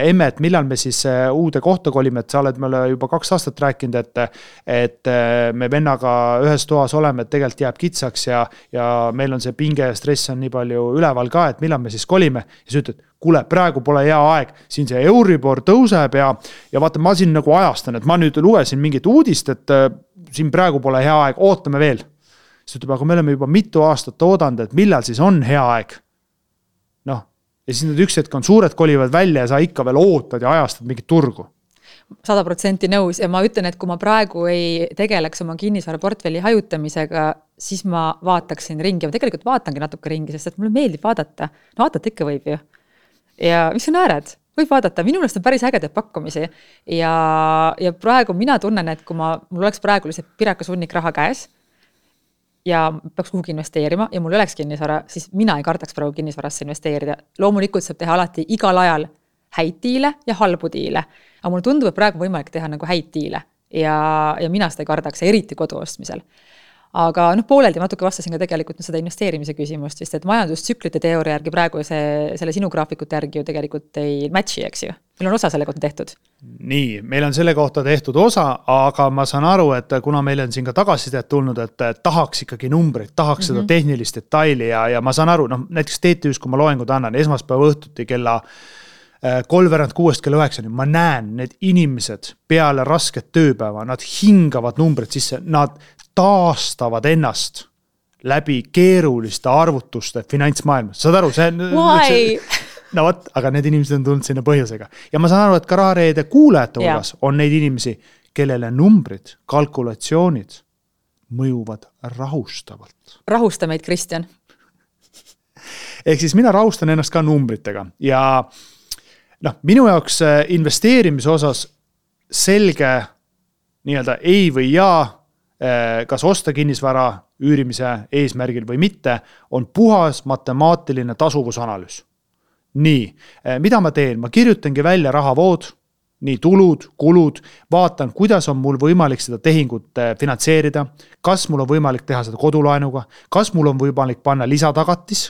emme, et millal me siis uude kohta kolime, et sa oled meile juba 2 aastat rääkinud, et me vennaga ühes toas oleme, et tegelikult jääb kitsaks ja meil on see pinge ja stress on nii palju üleval ka, et millal me siis kolime. Ja sa ütled, kuule, praegu pole hea aeg, siin see Euribor tõuseb ja vaata, ma siin nagu ajastan, et ma nüüd lugesin mingit uudist, et siin praegu pole hea aeg, ootame veel. Siis ütleb, aga me oleme juba mitu aastat oodanud, et millal siis on hea aeg. Ja siis need üks hetk on suured kolivad välja ja sa ikka veel ootad ja ajastad mingit turgu. 100% nõus ja ma ütlen, et kui ma praegu ei tegeleks oma kinnisvaraportfelli hajutamisega, siis ma vaataksin ringi. Ma tegelikult vaatangi natuke ringi, sest et mulle meeldib vaadata. Vaadata ikka võib ju. Ja mis sa naered? Võib vaadata. Minu meelest on päris ägedad pakkumisi. Ja praegu mina tunnen, et kui mul oleks praegu lihtsalt pirakas hunnik raha käes, ja peaks kuhugi investeerima ja mul oleks kinnisvara, siis mina ei kardaks praegu kinnisvarasse investeerida. Loomulikult saab teha alati igal ajal häid diile ja halbu diile. Aga mulle tundub, et praegu võimalik teha nagu häid diile ja mina seda ei kardaks, eriti kodu ostmisel. Aga pooleldi natuke vastasin ka tegelikult seda investeerimise küsimust, sest et majandustsüklite teooria järgi praegu selle sinu graafikute järgi ju tegelikult ei matchi, eks ju. Meil on osa selle kohta tehtud. Nii, meil on selle kohta tehtud osa, aga ma saan aru, et kuna meil on siin ka tagasisidet tulnud, et tahaks ikkagi numbreid, tahaks seda tehnilist detaili ja ma saan aru, näiteks TTÜs, kui ma loengud annan, esmaspäeva õhtuti kella 3:06 kella 9, ma näen need inimesed peale rasket tööpäeva, nad hingavad numbrid sisse, nad taastavad ennast läbi keeruliste arvutuste finantsmaailmas. Saad aru, see no võt, aga need inimesed on tulnud sinna põhjusega. Ja ma saan aru, et ka Rahareede kuulajate hulgas on neid inimesi, kellele numbrid, kalkulatsioonid mõjuvad rahustavalt. Rahusta meid, Kristjan. Ehk siis mina rahustan ennast ka numbritega ja minu jaoks investeerimise osas selge nii-öelda ei või jaa, kas osta kinnisvara üürimise eesmärgil või mitte, on puhas matemaatiline tasuvusanalüüs. Nii, mida ma teen? Ma kirjutangi välja rahavood, nii tulud, kulud, vaatan, kuidas on mul võimalik seda tehingut finantseerida, kas mul on võimalik teha seda kodulaenuga, kas mul on võimalik panna lisatagatis,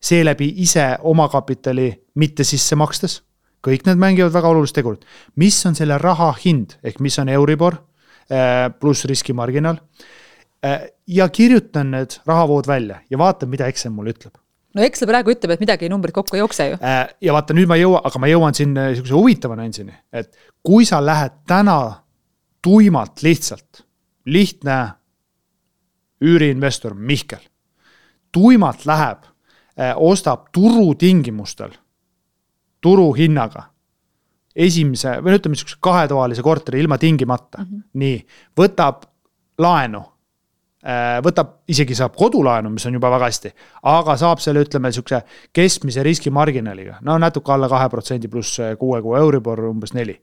seeläbi ise oma kapitali mitte sisse makstes. Kõik need mängivad väga olulist tegurit. Mis on selle raha hind, ehk mis on Euribor pluss riskimarginaal ja kirjutan need rahavood välja ja vaatan, mida Excel mulle ütleb. No Excel praegu ütleb, et midagi numbrid kokku ei jookse ju. Ja vaata, nüüd ma jõuan siin huvitava nändsini, et kui sa lähed täna tuimalt lihtsalt, lihtne üüriinvestor Mihkel, tuimalt läheb, ostab turutingimustel, turuhinnaga, esimese, või ütleme 2-toalise korteri ilma tingimata, nii, võtab laenu võtab, isegi saab kodulaenu, mis on juba väga hästi, aga saab selle, ütleme, sükse keskmise riskimarginaliga, no natuke alla 2% pluss 6 kuu Euribor umbes 4.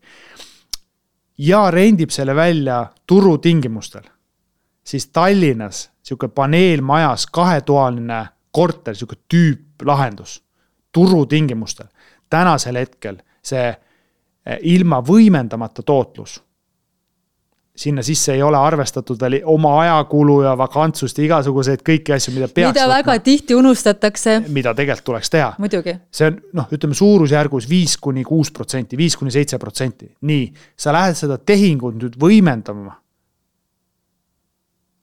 Ja rendib selle välja turutingimustel, siis Tallinnas siuke paneelmajas 2-toaline korter, siuke tüüplahendus turutingimustel. Tänasel hetkel see ilma võimendamata tootlus. Sinna sisse ei ole arvestatud veel oma ajakulu ja vakantsust ja igasuguseid kõiki asju, mida peaks mida väga tihti unustatakse. Mida tegelikult tuleks teha. Muidugi. See on, ütleme suurusjärgus 5-6%, 5-7%. Nii, sa lähed seda tehingut nüüd võimendama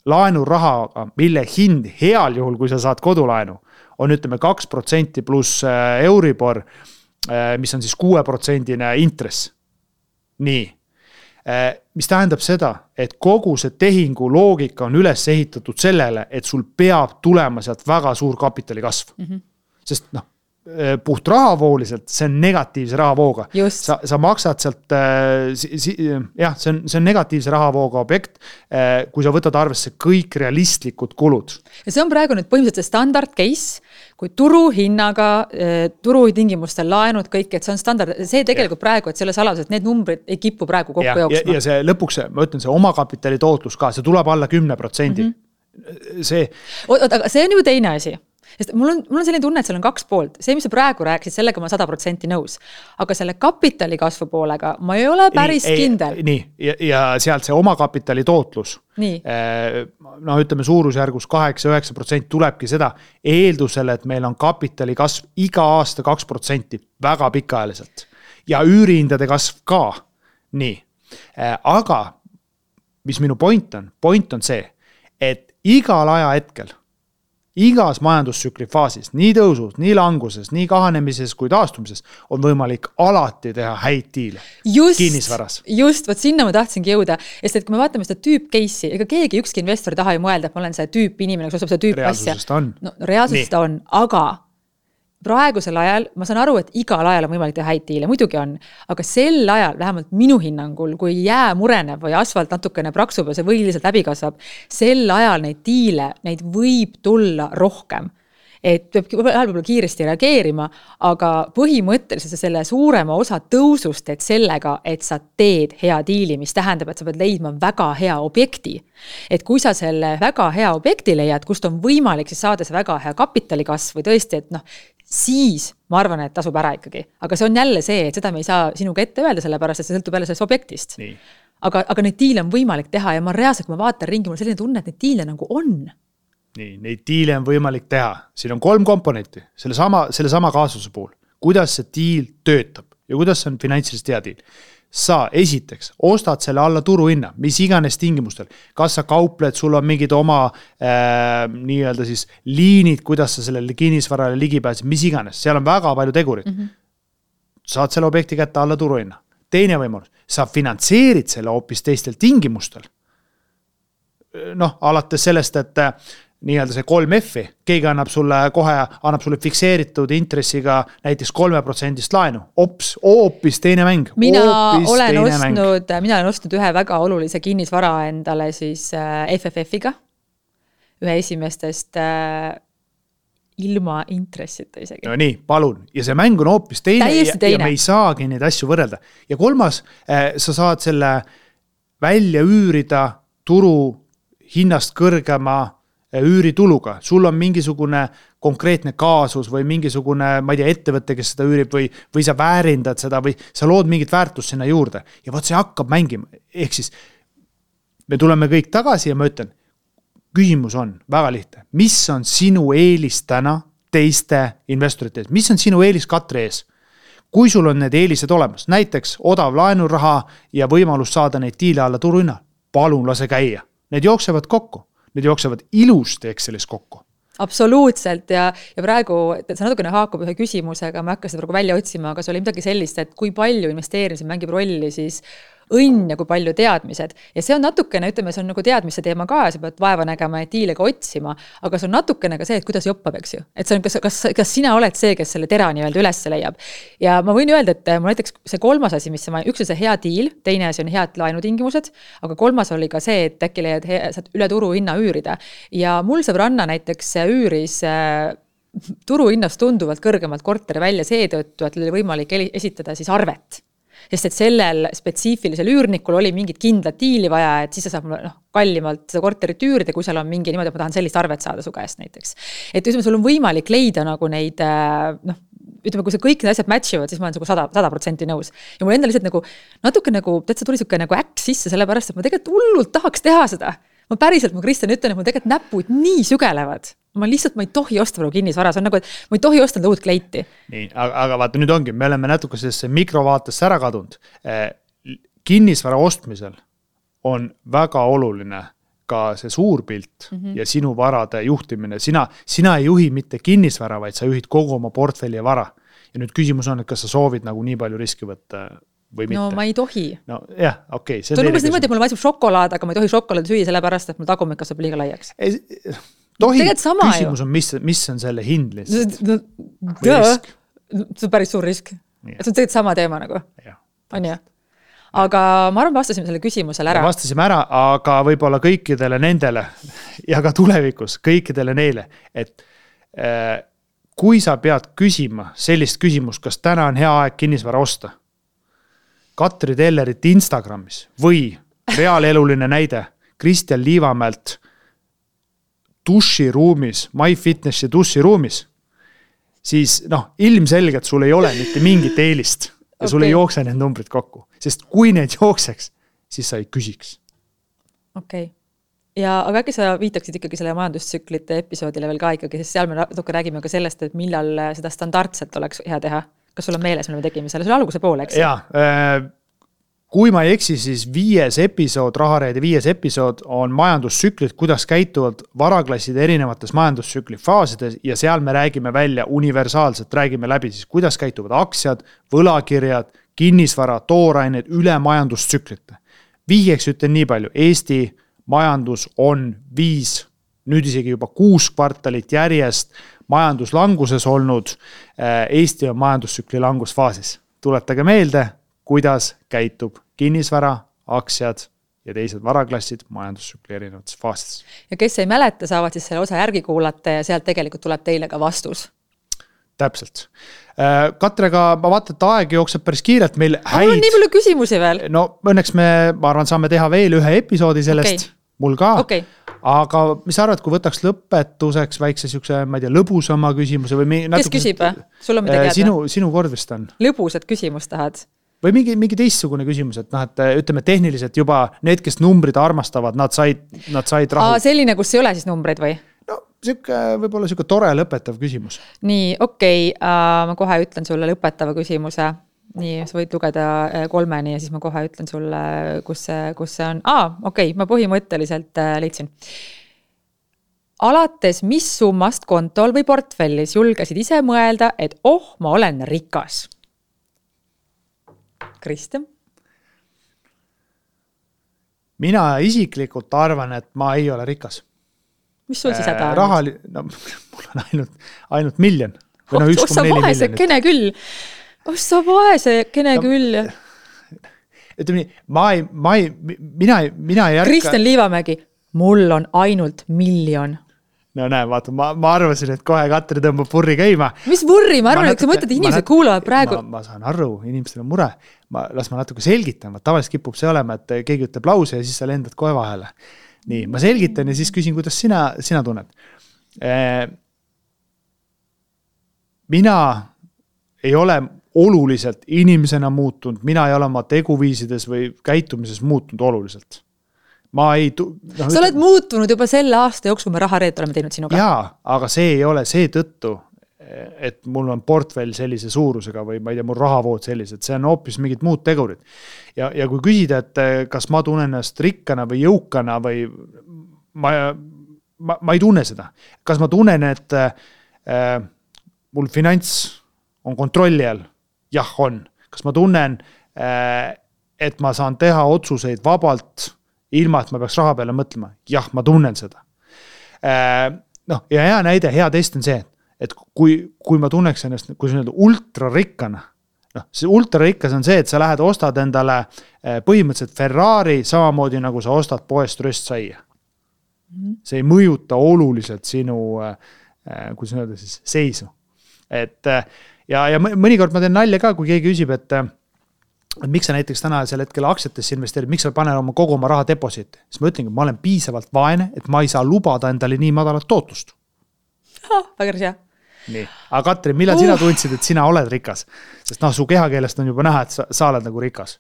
laenurahaga, mille hind heal juhul, kui sa saad kodulaenu, on ütleme 2% pluss Euribor, mis on siis 6% intress. Nii. Mis tähendab seda, et kogu see tehingu loogika on üles ehitatud sellele, et sul peab tulema sealt väga suur kapitali kasv. Sest puht rahavooliselt, see on negatiivse rahavooga. Sa maksad sealt, jah, see on negatiivse rahavooga objekt, kui sa võtad arvesse kõik realistlikud kulud. Ja see on praegu nüüd põhimõtteliselt standard case, kui turuhinnaga, turutingimustel laenud kõik, et see on standard, see tegelikult praegu, et selle saladus, et need numbrid ei kipu praegu kokku jooksma. Ja see lõpuks, ma ütlen, see omakapitali tootlus ka, see tuleb alla 10%. Aga see on ju teine asi. Sest mul on selline tunne, et seal on 2 poolt. See, mis sa praegu rääkisid, sellega ma 100% nõus. Aga selle kapitali kasvu poolega ma ei ole päris kindel. Nii, ja sealt see omakapitali tootlus. Ütleme suurusjärgus 8-9% tulebki seda eeldusele, et meil on kapitali kasv iga aasta 2% väga pikaajaliselt. Ja üürihindade kasv ka. Nii. Aga, mis minu point on see, et igal aja hetkel igas majandustsükli faasis, nii tõusus, nii languses, nii kahanemises kui taastumises on võimalik alati teha häid diile kinnisvaras. Just, võt sinna ma tahtsingi jõuda. Sest et kui me vaatame seda tüüp case'i, ega keegi ükski investor taha ei mõelda, et ma olen see tüüp inimene, kes ostab seda tüüp asja. Reaalsusest on, aga praegusel ajal, ma saan aru, et igal ajal on võimalik teha häid diile, muidugi on, aga sel ajal, vähemalt minu hinnangul, kui jää mureneb või asfalt natukene praksub ja see võiliselt läbi kasvab, sel ajal neid diile, neid võib tulla rohkem. Et peab võib-olla kiiresti reageerima, aga põhimõtteliselt selle suurema osa tõusust teed sellega, et sa teed hea diili, mis tähendab, et sa pead leidma väga hea objekti. Et kui sa selle väga hea objekti leiad, kust on võimalik siis saada see väga hea kapitalikasv või tõesti, et siis ma arvan, et tasub ära ikkagi. Aga see on jälle see, et seda me ei saa sinuga ette öelda, sellepärast, et see sõltub jälle sellest objektist. Aga neid diile on võimalik teha ja ma reaalselt, kui ma vaatan ringi, mul selline tunne, et neid diile nagu on. Nii, neid diile on võimalik teha. Siin on 3 komponenti selle sama kaasuse puhul. Kuidas see diil töötab ja kuidas see on finantsiliselt hea diil. Sa esiteks ostad selle alla turuhinna, mis iganes tingimustel. Kas sa kaupled, sul on mingid oma nii-öelda siis liinid, kuidas sa sellele kinnisvarale ligi pääsid, mis iganes. Seal on väga palju tegurid. Saad selle objekti kätte alla turuhinna. Teine võimalus, sa finantseerid selle hoopis teistel tingimustel. Alates sellest, et nii-öelda see 3F-i, keegi annab sulle fikseeritud intressiga näiteks 3% laenu. Hoopis teine mäng. Mina olen ostnud ühe väga olulise kinnisvara endale siis FFF-iga. Ühe esimestest ilma intressita isegi. No nii, palun. Ja see mäng on hoopis teine ja me ei saagi neid asju võrrelda. Ja 3, sa saad selle välja üürida turu hinnast kõrgema üürituluga. Sul on mingisugune konkreetne kaasus või mingisugune, ma ei tea, ettevõtte, kes seda üürib või sa väärindad seda või sa lood mingit väärtust sinna juurde. Ja võt see hakkab mängima. Ehk siis me tuleme kõik tagasi ja ma ütlen, küsimus on väga lihtne. Mis on sinu eelis täna teiste investorite ees? Mis on sinu eelis Katri ees? Kui sul on need eelised olemas, näiteks odav laenuraha ja võimalus saada neid diile alla turuhinna, palun lase käia. Need jooksevad kokku. Need jooksevad ilusti Excelis kokku. Absoluutselt ja praegu, see natukene haakub ühe küsimusega, ma hakkasin praegu välja otsima, aga see oli midagi sellist, et kui palju investeerimisel mängib rolli siis õnn ja kui palju teadmised. Ja see on natukene, ütleme, see on nagu teadmise teema ka ja sa pead vaeva nägema ja diile ka otsima, aga see on natukene ka see, et kuidas joppab, eks ju. Et see on, kas sina oled see, kes selle tera nii-öelda üles leiab. Ja ma võin öelda, et mul näiteks see kolmas asi, mis üks on see hea diil, teine asi on head laenutingimused, aga kolmas oli ka see, et äkki leiad saad üle turu hinna üürida. Ja mul sõbranna näiteks üüris turuhinnast tunduvalt kõrgemalt korteri välja seetõttu, et oli võimalik esitada siis arvet. Sest et sellel spetsiifilisel üürnikul oli mingit kindlat diili vaja, et siis sa saab kallimalt seda korterit üürida, kui seal on mingi niimoodi, et ma tahan sellist arvet saada su käest näiteks. Et ütleme, sul on võimalik leida nagu neid, ütleme, kui see kõik need asjad matchivad, siis ma olen 100% nõus. Ja mul enda lihtsalt nagu natuke nagu, täitsa tuli siuke nagu äkk sisse, sellepärast, et ma tegelikult hullult tahaks teha seda. Ma päriselt, ma Kristjan ütlen, et mul tegelikult näpud nii sügelevad. Ma ei tohi osta kinnisvara, see on nagu, et ma ei tohi osta uut kleiti. Nii, aga vaata nüüd ongi, me oleme natuke sellesse mikrovaatesse ära kadunud. Kinnisvara ostmisel on väga oluline ka see suur pilt ja sinu varade juhtimine. Sina ei juhi mitte kinnisvara, vaid sa juhid kogu oma portfelli ja vara. Ja nüüd küsimus on, et kas sa soovid nagu nii palju riski võtta või mitte. No ma ei tohi. No jah, okei. See on umbes niimoodi, et mul maitseb šokolaad, aga ma ei tohi šokolaadi süüa sellepärast, et mul tagumik kasvab liiga laiaks. Tohi, küsimus on, mis on selle hind lihtsalt? Risk. See on päris suur risk. See on tegelikult sama teema nagu. On ju? Aga ma arvan, vastasime selle küsimusele ära. Vastasime ära, aga võib-olla kõikidele nendele ja ka tulevikus kõikidele neile, et kui sa pead küsima sellist küsimust, kas täna on hea aeg kinnisvara osta, Katri Tellerit Instagramis või reaaleluline näide Kristjan Liivamäelt duširuumis, MyFitnessi duširuumis, siis ilmselgelt sul ei ole mitte mingit eelist ja sul ei jookse need numbrid kokku. Sest kui need jookseks, siis sa ei küsiks. Okei. Aga äkki sa viitaksid ikkagi selle majandustsüklite episoodile veel ka ikkagi, sest seal me natuke räägime ka sellest, et millal seda standardselt oleks hea teha. Kas sul on meeles, mille me tegime selle? See oli alguse poole, eks? Jaa, kui ma ei eksi, siis 5. episood, Rahareide 5. episood on majandustsüklid, kuidas käituvad varaklassid erinevates majandustsükli faasides ja seal me räägime välja universaalselt, räägime läbi siis, kuidas käituvad aktsiad, võlakirjad, kinnisvara, toorained üle majandustsüklite. Vihjeks ütlen nii palju, Eesti majandus on 5, nüüd isegi juba 6 kvartalit järjest majanduslanguses olnud, Eesti on majandustsükli langusfaasis. Tuletage meelde, kuidas käitub kinnisvara, aktsiad ja teised varaklassid majandustsükli erinevates faasides. Ja kes ei mäleta, saavad siis selle osa järgi kuulata ja sealt tegelikult tuleb teile ka vastus. Täpselt. Katrega, ma vaatan, et aeg jookseb päris kiirelt meil häid. On nii palju küsimusi veel? No õnneks ma arvan, saame teha veel ühe episoodi sellest. Okay. Mul ka. Okay. Aga mis arvad, kui võtaks lõpetuseks väikse siukse, ma ei tea, lõbusama küsimuse või kes küsib? Sul on midagi teada? Sinu kord vist on. Lõbusat küsimust tahad? Või mingi teistsugune küsimus, et ütleme tehniliselt juba need, kes numbrid armastavad, nad said rahu. Selline, kus ei ole siis numbreid või? No, võib-olla siuke tore lõpetav küsimus. Nii, okei. Ma kohe ütlen sulle lõpetava küsimuse. Nii, sa võid lugeda 3 ja siis ma kohe ütlen sulle, kus see on. Okei, ma põhimõtteliselt leidsin. Alates mis summast kontol või portfellis julgesid ise mõelda, et ma olen rikas? Kristjan? Mina isiklikult arvan, et ma ei ole rikas. Mis sul siis häda on? Mul on ainult miljon. Ossa vaese kene küll. Ossa vaese kene küll. Ütleme nii, mina ei ärka. Kristjan Liivamägi, mul on ainult miljon. No näe, vaata, ma arvasin, et kohe Katri tõmbab purri käima. Mis purri? Ma arvan, et sa mõtled, inimesed kuulavad praegu. Ma saan aru, inimestel on mure. Las ma natuke selgitan. Tavaliselt kipub see olema, et keegi ütleb lause ja siis sa lendad kohe vahele. Nii, ma selgitan ja siis küsin, kuidas sina tunned. Mina ei ole oluliselt inimesena muutunud, mina ei ole oma teguviisides või käitumises muutunud oluliselt. Sa oled muutunud juba selle aasta jooksul, me Rahareed oleme teinud sinuga. Jaa, aga see ei ole see tõttu, et mul on portfell sellise suurusega või ma ei tea, mul rahavood sellised, see on hoopis mingid muud tegurid. Ja kui küsida, et kas ma tunnen ennast rikkana või jõukana või ma ei tunne seda. Kas ma tunnen, et mul finants on kontrolli all? Jah, on. Kas ma tunnen, et ma saan teha otsuseid vabalt, ilma et ma peaks raha peale mõtlema. Jah, ma tunnen seda. Noh, ja hea näide, hea test on see, et kui ma tunneks ennast, kui see on ultrarikkana, noh, see ultrarikkas on see, et sa lähed ostad endale põhimõtteliselt Ferrari, samamoodi nagu sa ostad poest röstsaia. See ei mõjuta oluliselt sinu, kuidas öelda siis, seisu. Ja mõnikord ma teen nalja ka, kui keegi küsib, et miks sa näiteks täna sel hetkel aktsiatesse investeerid, miks sa paned kogu oma raha deposiiti, siis ma ütlengi, ma olen piisavalt vaene, et ma ei saa lubada endale nii madalat tootlust. Väga hea. Nii, aga Katrin, millal sina tundsid, et sina oled rikas? Sest su kehakeelest on juba näha, et sa oled nagu rikas.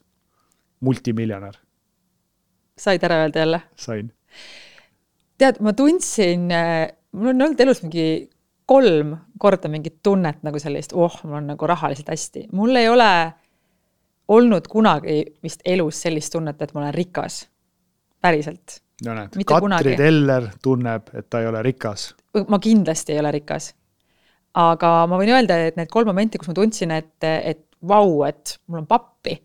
Multimiljonär. Said ära öelda jälle? Sain. Tead, ma tundsin, mul on olnud elus mingi 3 korda mingit tunnet nagu sellist, mul on nagu rahaliselt hästi. Mul ei ole olnud kunagi vist elus sellist tunnet, et ma olen rikas. Päriselt. No näed, Katri Teller tunneb, et ta ei ole rikas. Ma kindlasti ei ole rikas. Aga ma võin öelda, et need 3 momenti, kus ma tundsin, et vau, et mul on pappi.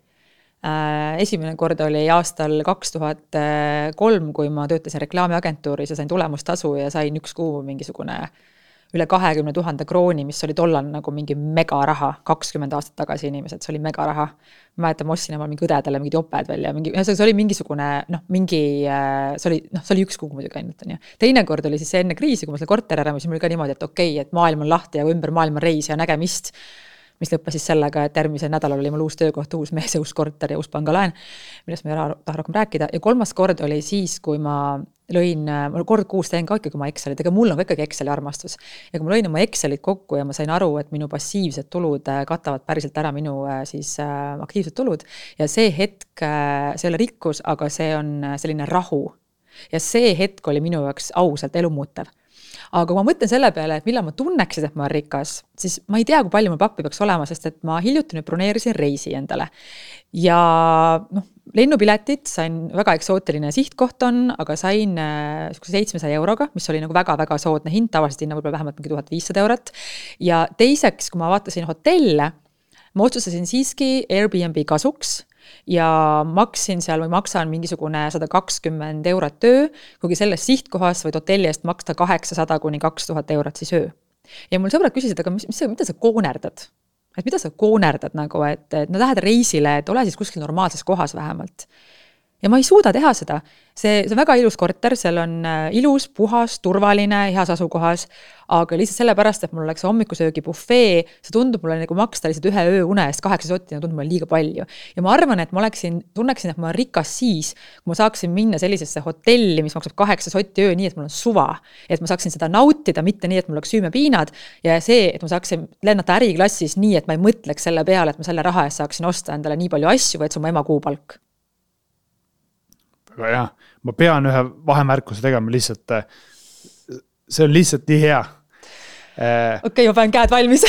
Esimene kord oli aastal 2003, kui ma töötasin reklaamiagentuuris ja sain tulemustasu ja sain 1 kuu mingisugune üle 20 000 krooni, mis oli tollal nagu mingi megaraha, 20 aastat tagasi inimesed, see oli megaraha. Ma mäletan, ma ostsin omal mingi õdedele mingid oped välja, see oli mingisugune, see oli 1 kuu muidugi ainult. Teine kord oli siis see enne kriisi, kui ma selle korteri ära, siis mul oli ka niimoodi, et okei, et maailm on lahti ja ümber maailma reis ja nägemist, mis lõppes siis sellega, et järgmisel nädalal oli mul uus töökoht, uus mees ja uus korter ja uus pangalaen, millest ma ei taha rohkem rääkida. Ja 3. kord oli siis, kui ma lõin, kord kuus teen ka ikkagi oma Excelit, aga mul on ikkagi Exceli armastus. Ja kui ma lõin oma Excelit kokku ja ma sain aru, et minu passiivsed tulud katavad päriselt ära minu siis aktiivsed tulud. Ja see hetk, see ei ole rikkus, aga see on selline rahu. Ja see hetk oli minu jaoks ausalt elumuutev. Aga kui ma mõtlen selle peale, et millal ma tunneksin, et ma olen rikas, siis ma ei tea, kui palju mul pappi peaks olema, sest et ma hiljuti nüüd broneerisin reisi endale. Ja lennupiletit sain, väga eksootiline sihtkoht on, aga sain 700 €, mis oli nagu väga-väga soodne hind, tavaliselt hinna võib-olla vähemalt 1500 €. Ja teiseks, kui ma vaatasin hotelle, ma otsustasin siiski Airbnb kasuks ja maksin seal või maksan mingisugune 120 € öö, kuigi selles sihtkohas võid hotelli eest maksta 800 kuni 2000 € siis öö. Ja mul sõbrad küsisid, aga mida sa koonerdad? Et mida sa koonerdad nagu, et lähed reisile, et ole siis kuskil normaalses kohas vähemalt. Ja ma ei suuda teha seda. See on väga ilus korter, seal on ilus, puhas, turvaline, heas asukohas, aga lihtsalt sellepärast, et mul oleks hommikusöögi buffee, see tundub mulle nagu maksta lihtsalt 1 öö une eest 8 sotti, tundub mulle liiga palju. Ja ma arvan, et ma tunneksin, et ma olen rikas siis, kui ma saaksin minna sellisesse hotelli, mis maksab 8 sotti öö, nii et mul on suva. Et ma saaksin seda nautida, mitte nii, et mul oleks süümepiinad ja see, et ma saaksin lennata äriklassis nii, et ma ei mõtleks selle peale, et ma selle raha eest saaksin osta endale nii palju asju, või et see on mu ema kuupalk. Aga jah, ma pean ühe vahemärkuse tegema lihtsalt, see on lihtsalt nii hea. Okei, ma pean käed valmis.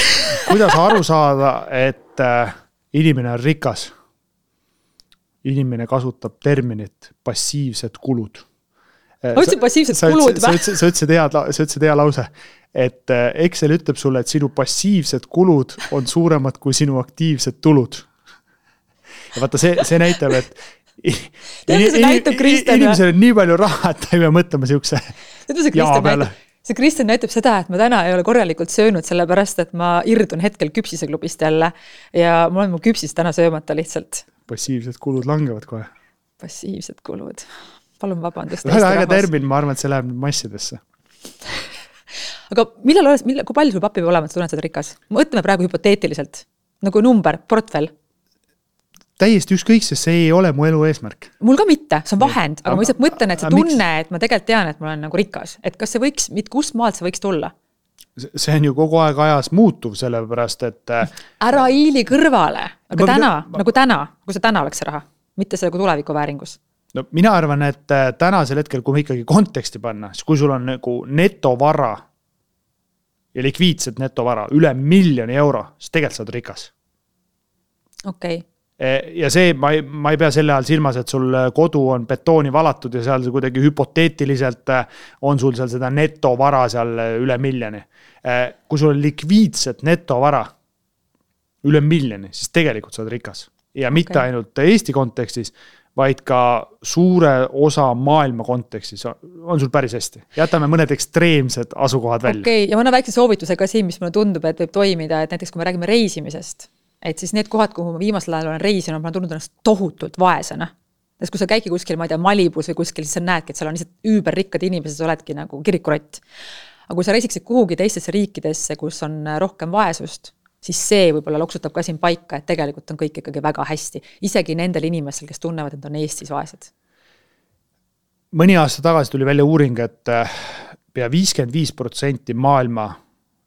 Kuidas aru saada, et inimene on rikas? Inimene kasutab terminit passiivsed kulud. Ma ütlesin passiivsed kulud või? Sa ütlesid hea lause, et Excel ütleb sulle, et sinu passiivsed kulud on suuremad kui sinu aktiivsed tulud. Ja vaata, see näitab, et inimesel on nii palju raha, et ta ei pea mõtlema siukse jaa peale. See Kristjan näitab seda, et ma täna ei ole korralikult söönud, sellepärast, et ma irdun hetkel küpsiseklubist jälle ja mul on mu küpsis täna söömata lihtsalt. Passiivsed kulud langevad kohe. Passiivsed kulud. Palun vabandust. Väga termin, ma arvan, et see läheb massidesse. Aga kui palju sul pappi peab olema, et sa tunned seda rikas? Mõtleme praegu hüpoteetiliselt. Nagu number, portfell. Täiesti ükskõik, sest see ei ole mu elu eesmärk. Mul ka mitte, see on vahend, aga ma lihtsalt mõtlen, et see tunne, et ma tegelikult tean, et ma olen nagu rikas. Et kas see võiks, kust maalt see võiks tulla? See on ju kogu aeg ajas muutuv, sellepärast, et ära hiili kõrvale, aga kui see täna oleks see raha, mitte see tuleviku vääringus. No mina arvan, et tänasel hetkel, kui me ikkagi konteksti panna, siis kui sul on nagu netovara ja likviidset netovara üle 1 000 000 €, siis tegelikult sa oled rikas. Okei. Ja see, ma ei pea selle all silmas, et sul kodu on betooni valatud ja seal kuidagi hüpoteetiliselt on sul seal seda netovara seal üle 1 000 000. Kui sul on likviidset netovara üle 1 000 000, siis tegelikult sa oled rikas. ja mitte ainult Eesti kontekstis, vaid ka suure osa maailma kontekstis on sul päris hästi. Jätame mõned ekstreemsed asukohad välja. Ja ma annan väikse soovituse ka siin, mis mulle tundub, et võib toimida, et näiteks kui me räägime reisimisest, et siis need kohad, kuhu ma viimasel ajal olen reisinud, ma olen tundnud ennast tohutult vaesena. Sest kui sa käidki kuskil, ma ei tea, Malibus või kuskil, siis sa näedki, et seal on lihtsalt üüberrikkad inimesed, sa oledki nagu kirikurott. Aga kui sa reisiksid kuhugi teistesse riikidesse, kus on rohkem vaesust, siis see võib-olla loksutab ka siin paika, et tegelikult on kõik ikkagi väga hästi. Isegi nendel inimestel, kes tunnevad, et on Eestis vaesed. Mõni aasta tagasi tuli välja uuring, et pea 55% maailma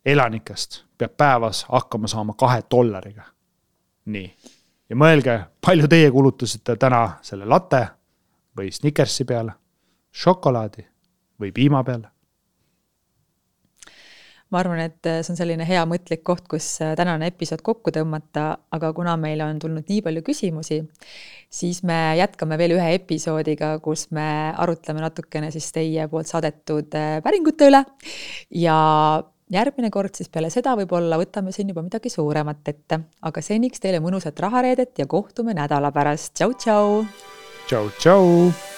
elanikest peab päevas hakkama saama $2. Nii. Ja mõelge, palju teie kulutusite täna selle latte või Snickersi peale, šokolaadi või piima peale? Ma arvan, et see on selline hea mõtlik koht, kus tänane episood kokku tõmmata, aga kuna meil on tulnud nii palju küsimusi, siis me jätkame veel ühe episoodiga, kus me arutleme natukene siis teie poolt saadetud päringute üle ja järgmine kord siis peale seda võib-olla võtame siin juba midagi suuremat ette, aga seniks teile mõnusat rahareedet ja kohtume nädala pärast. Tšau, tšau! Tšau, tšau!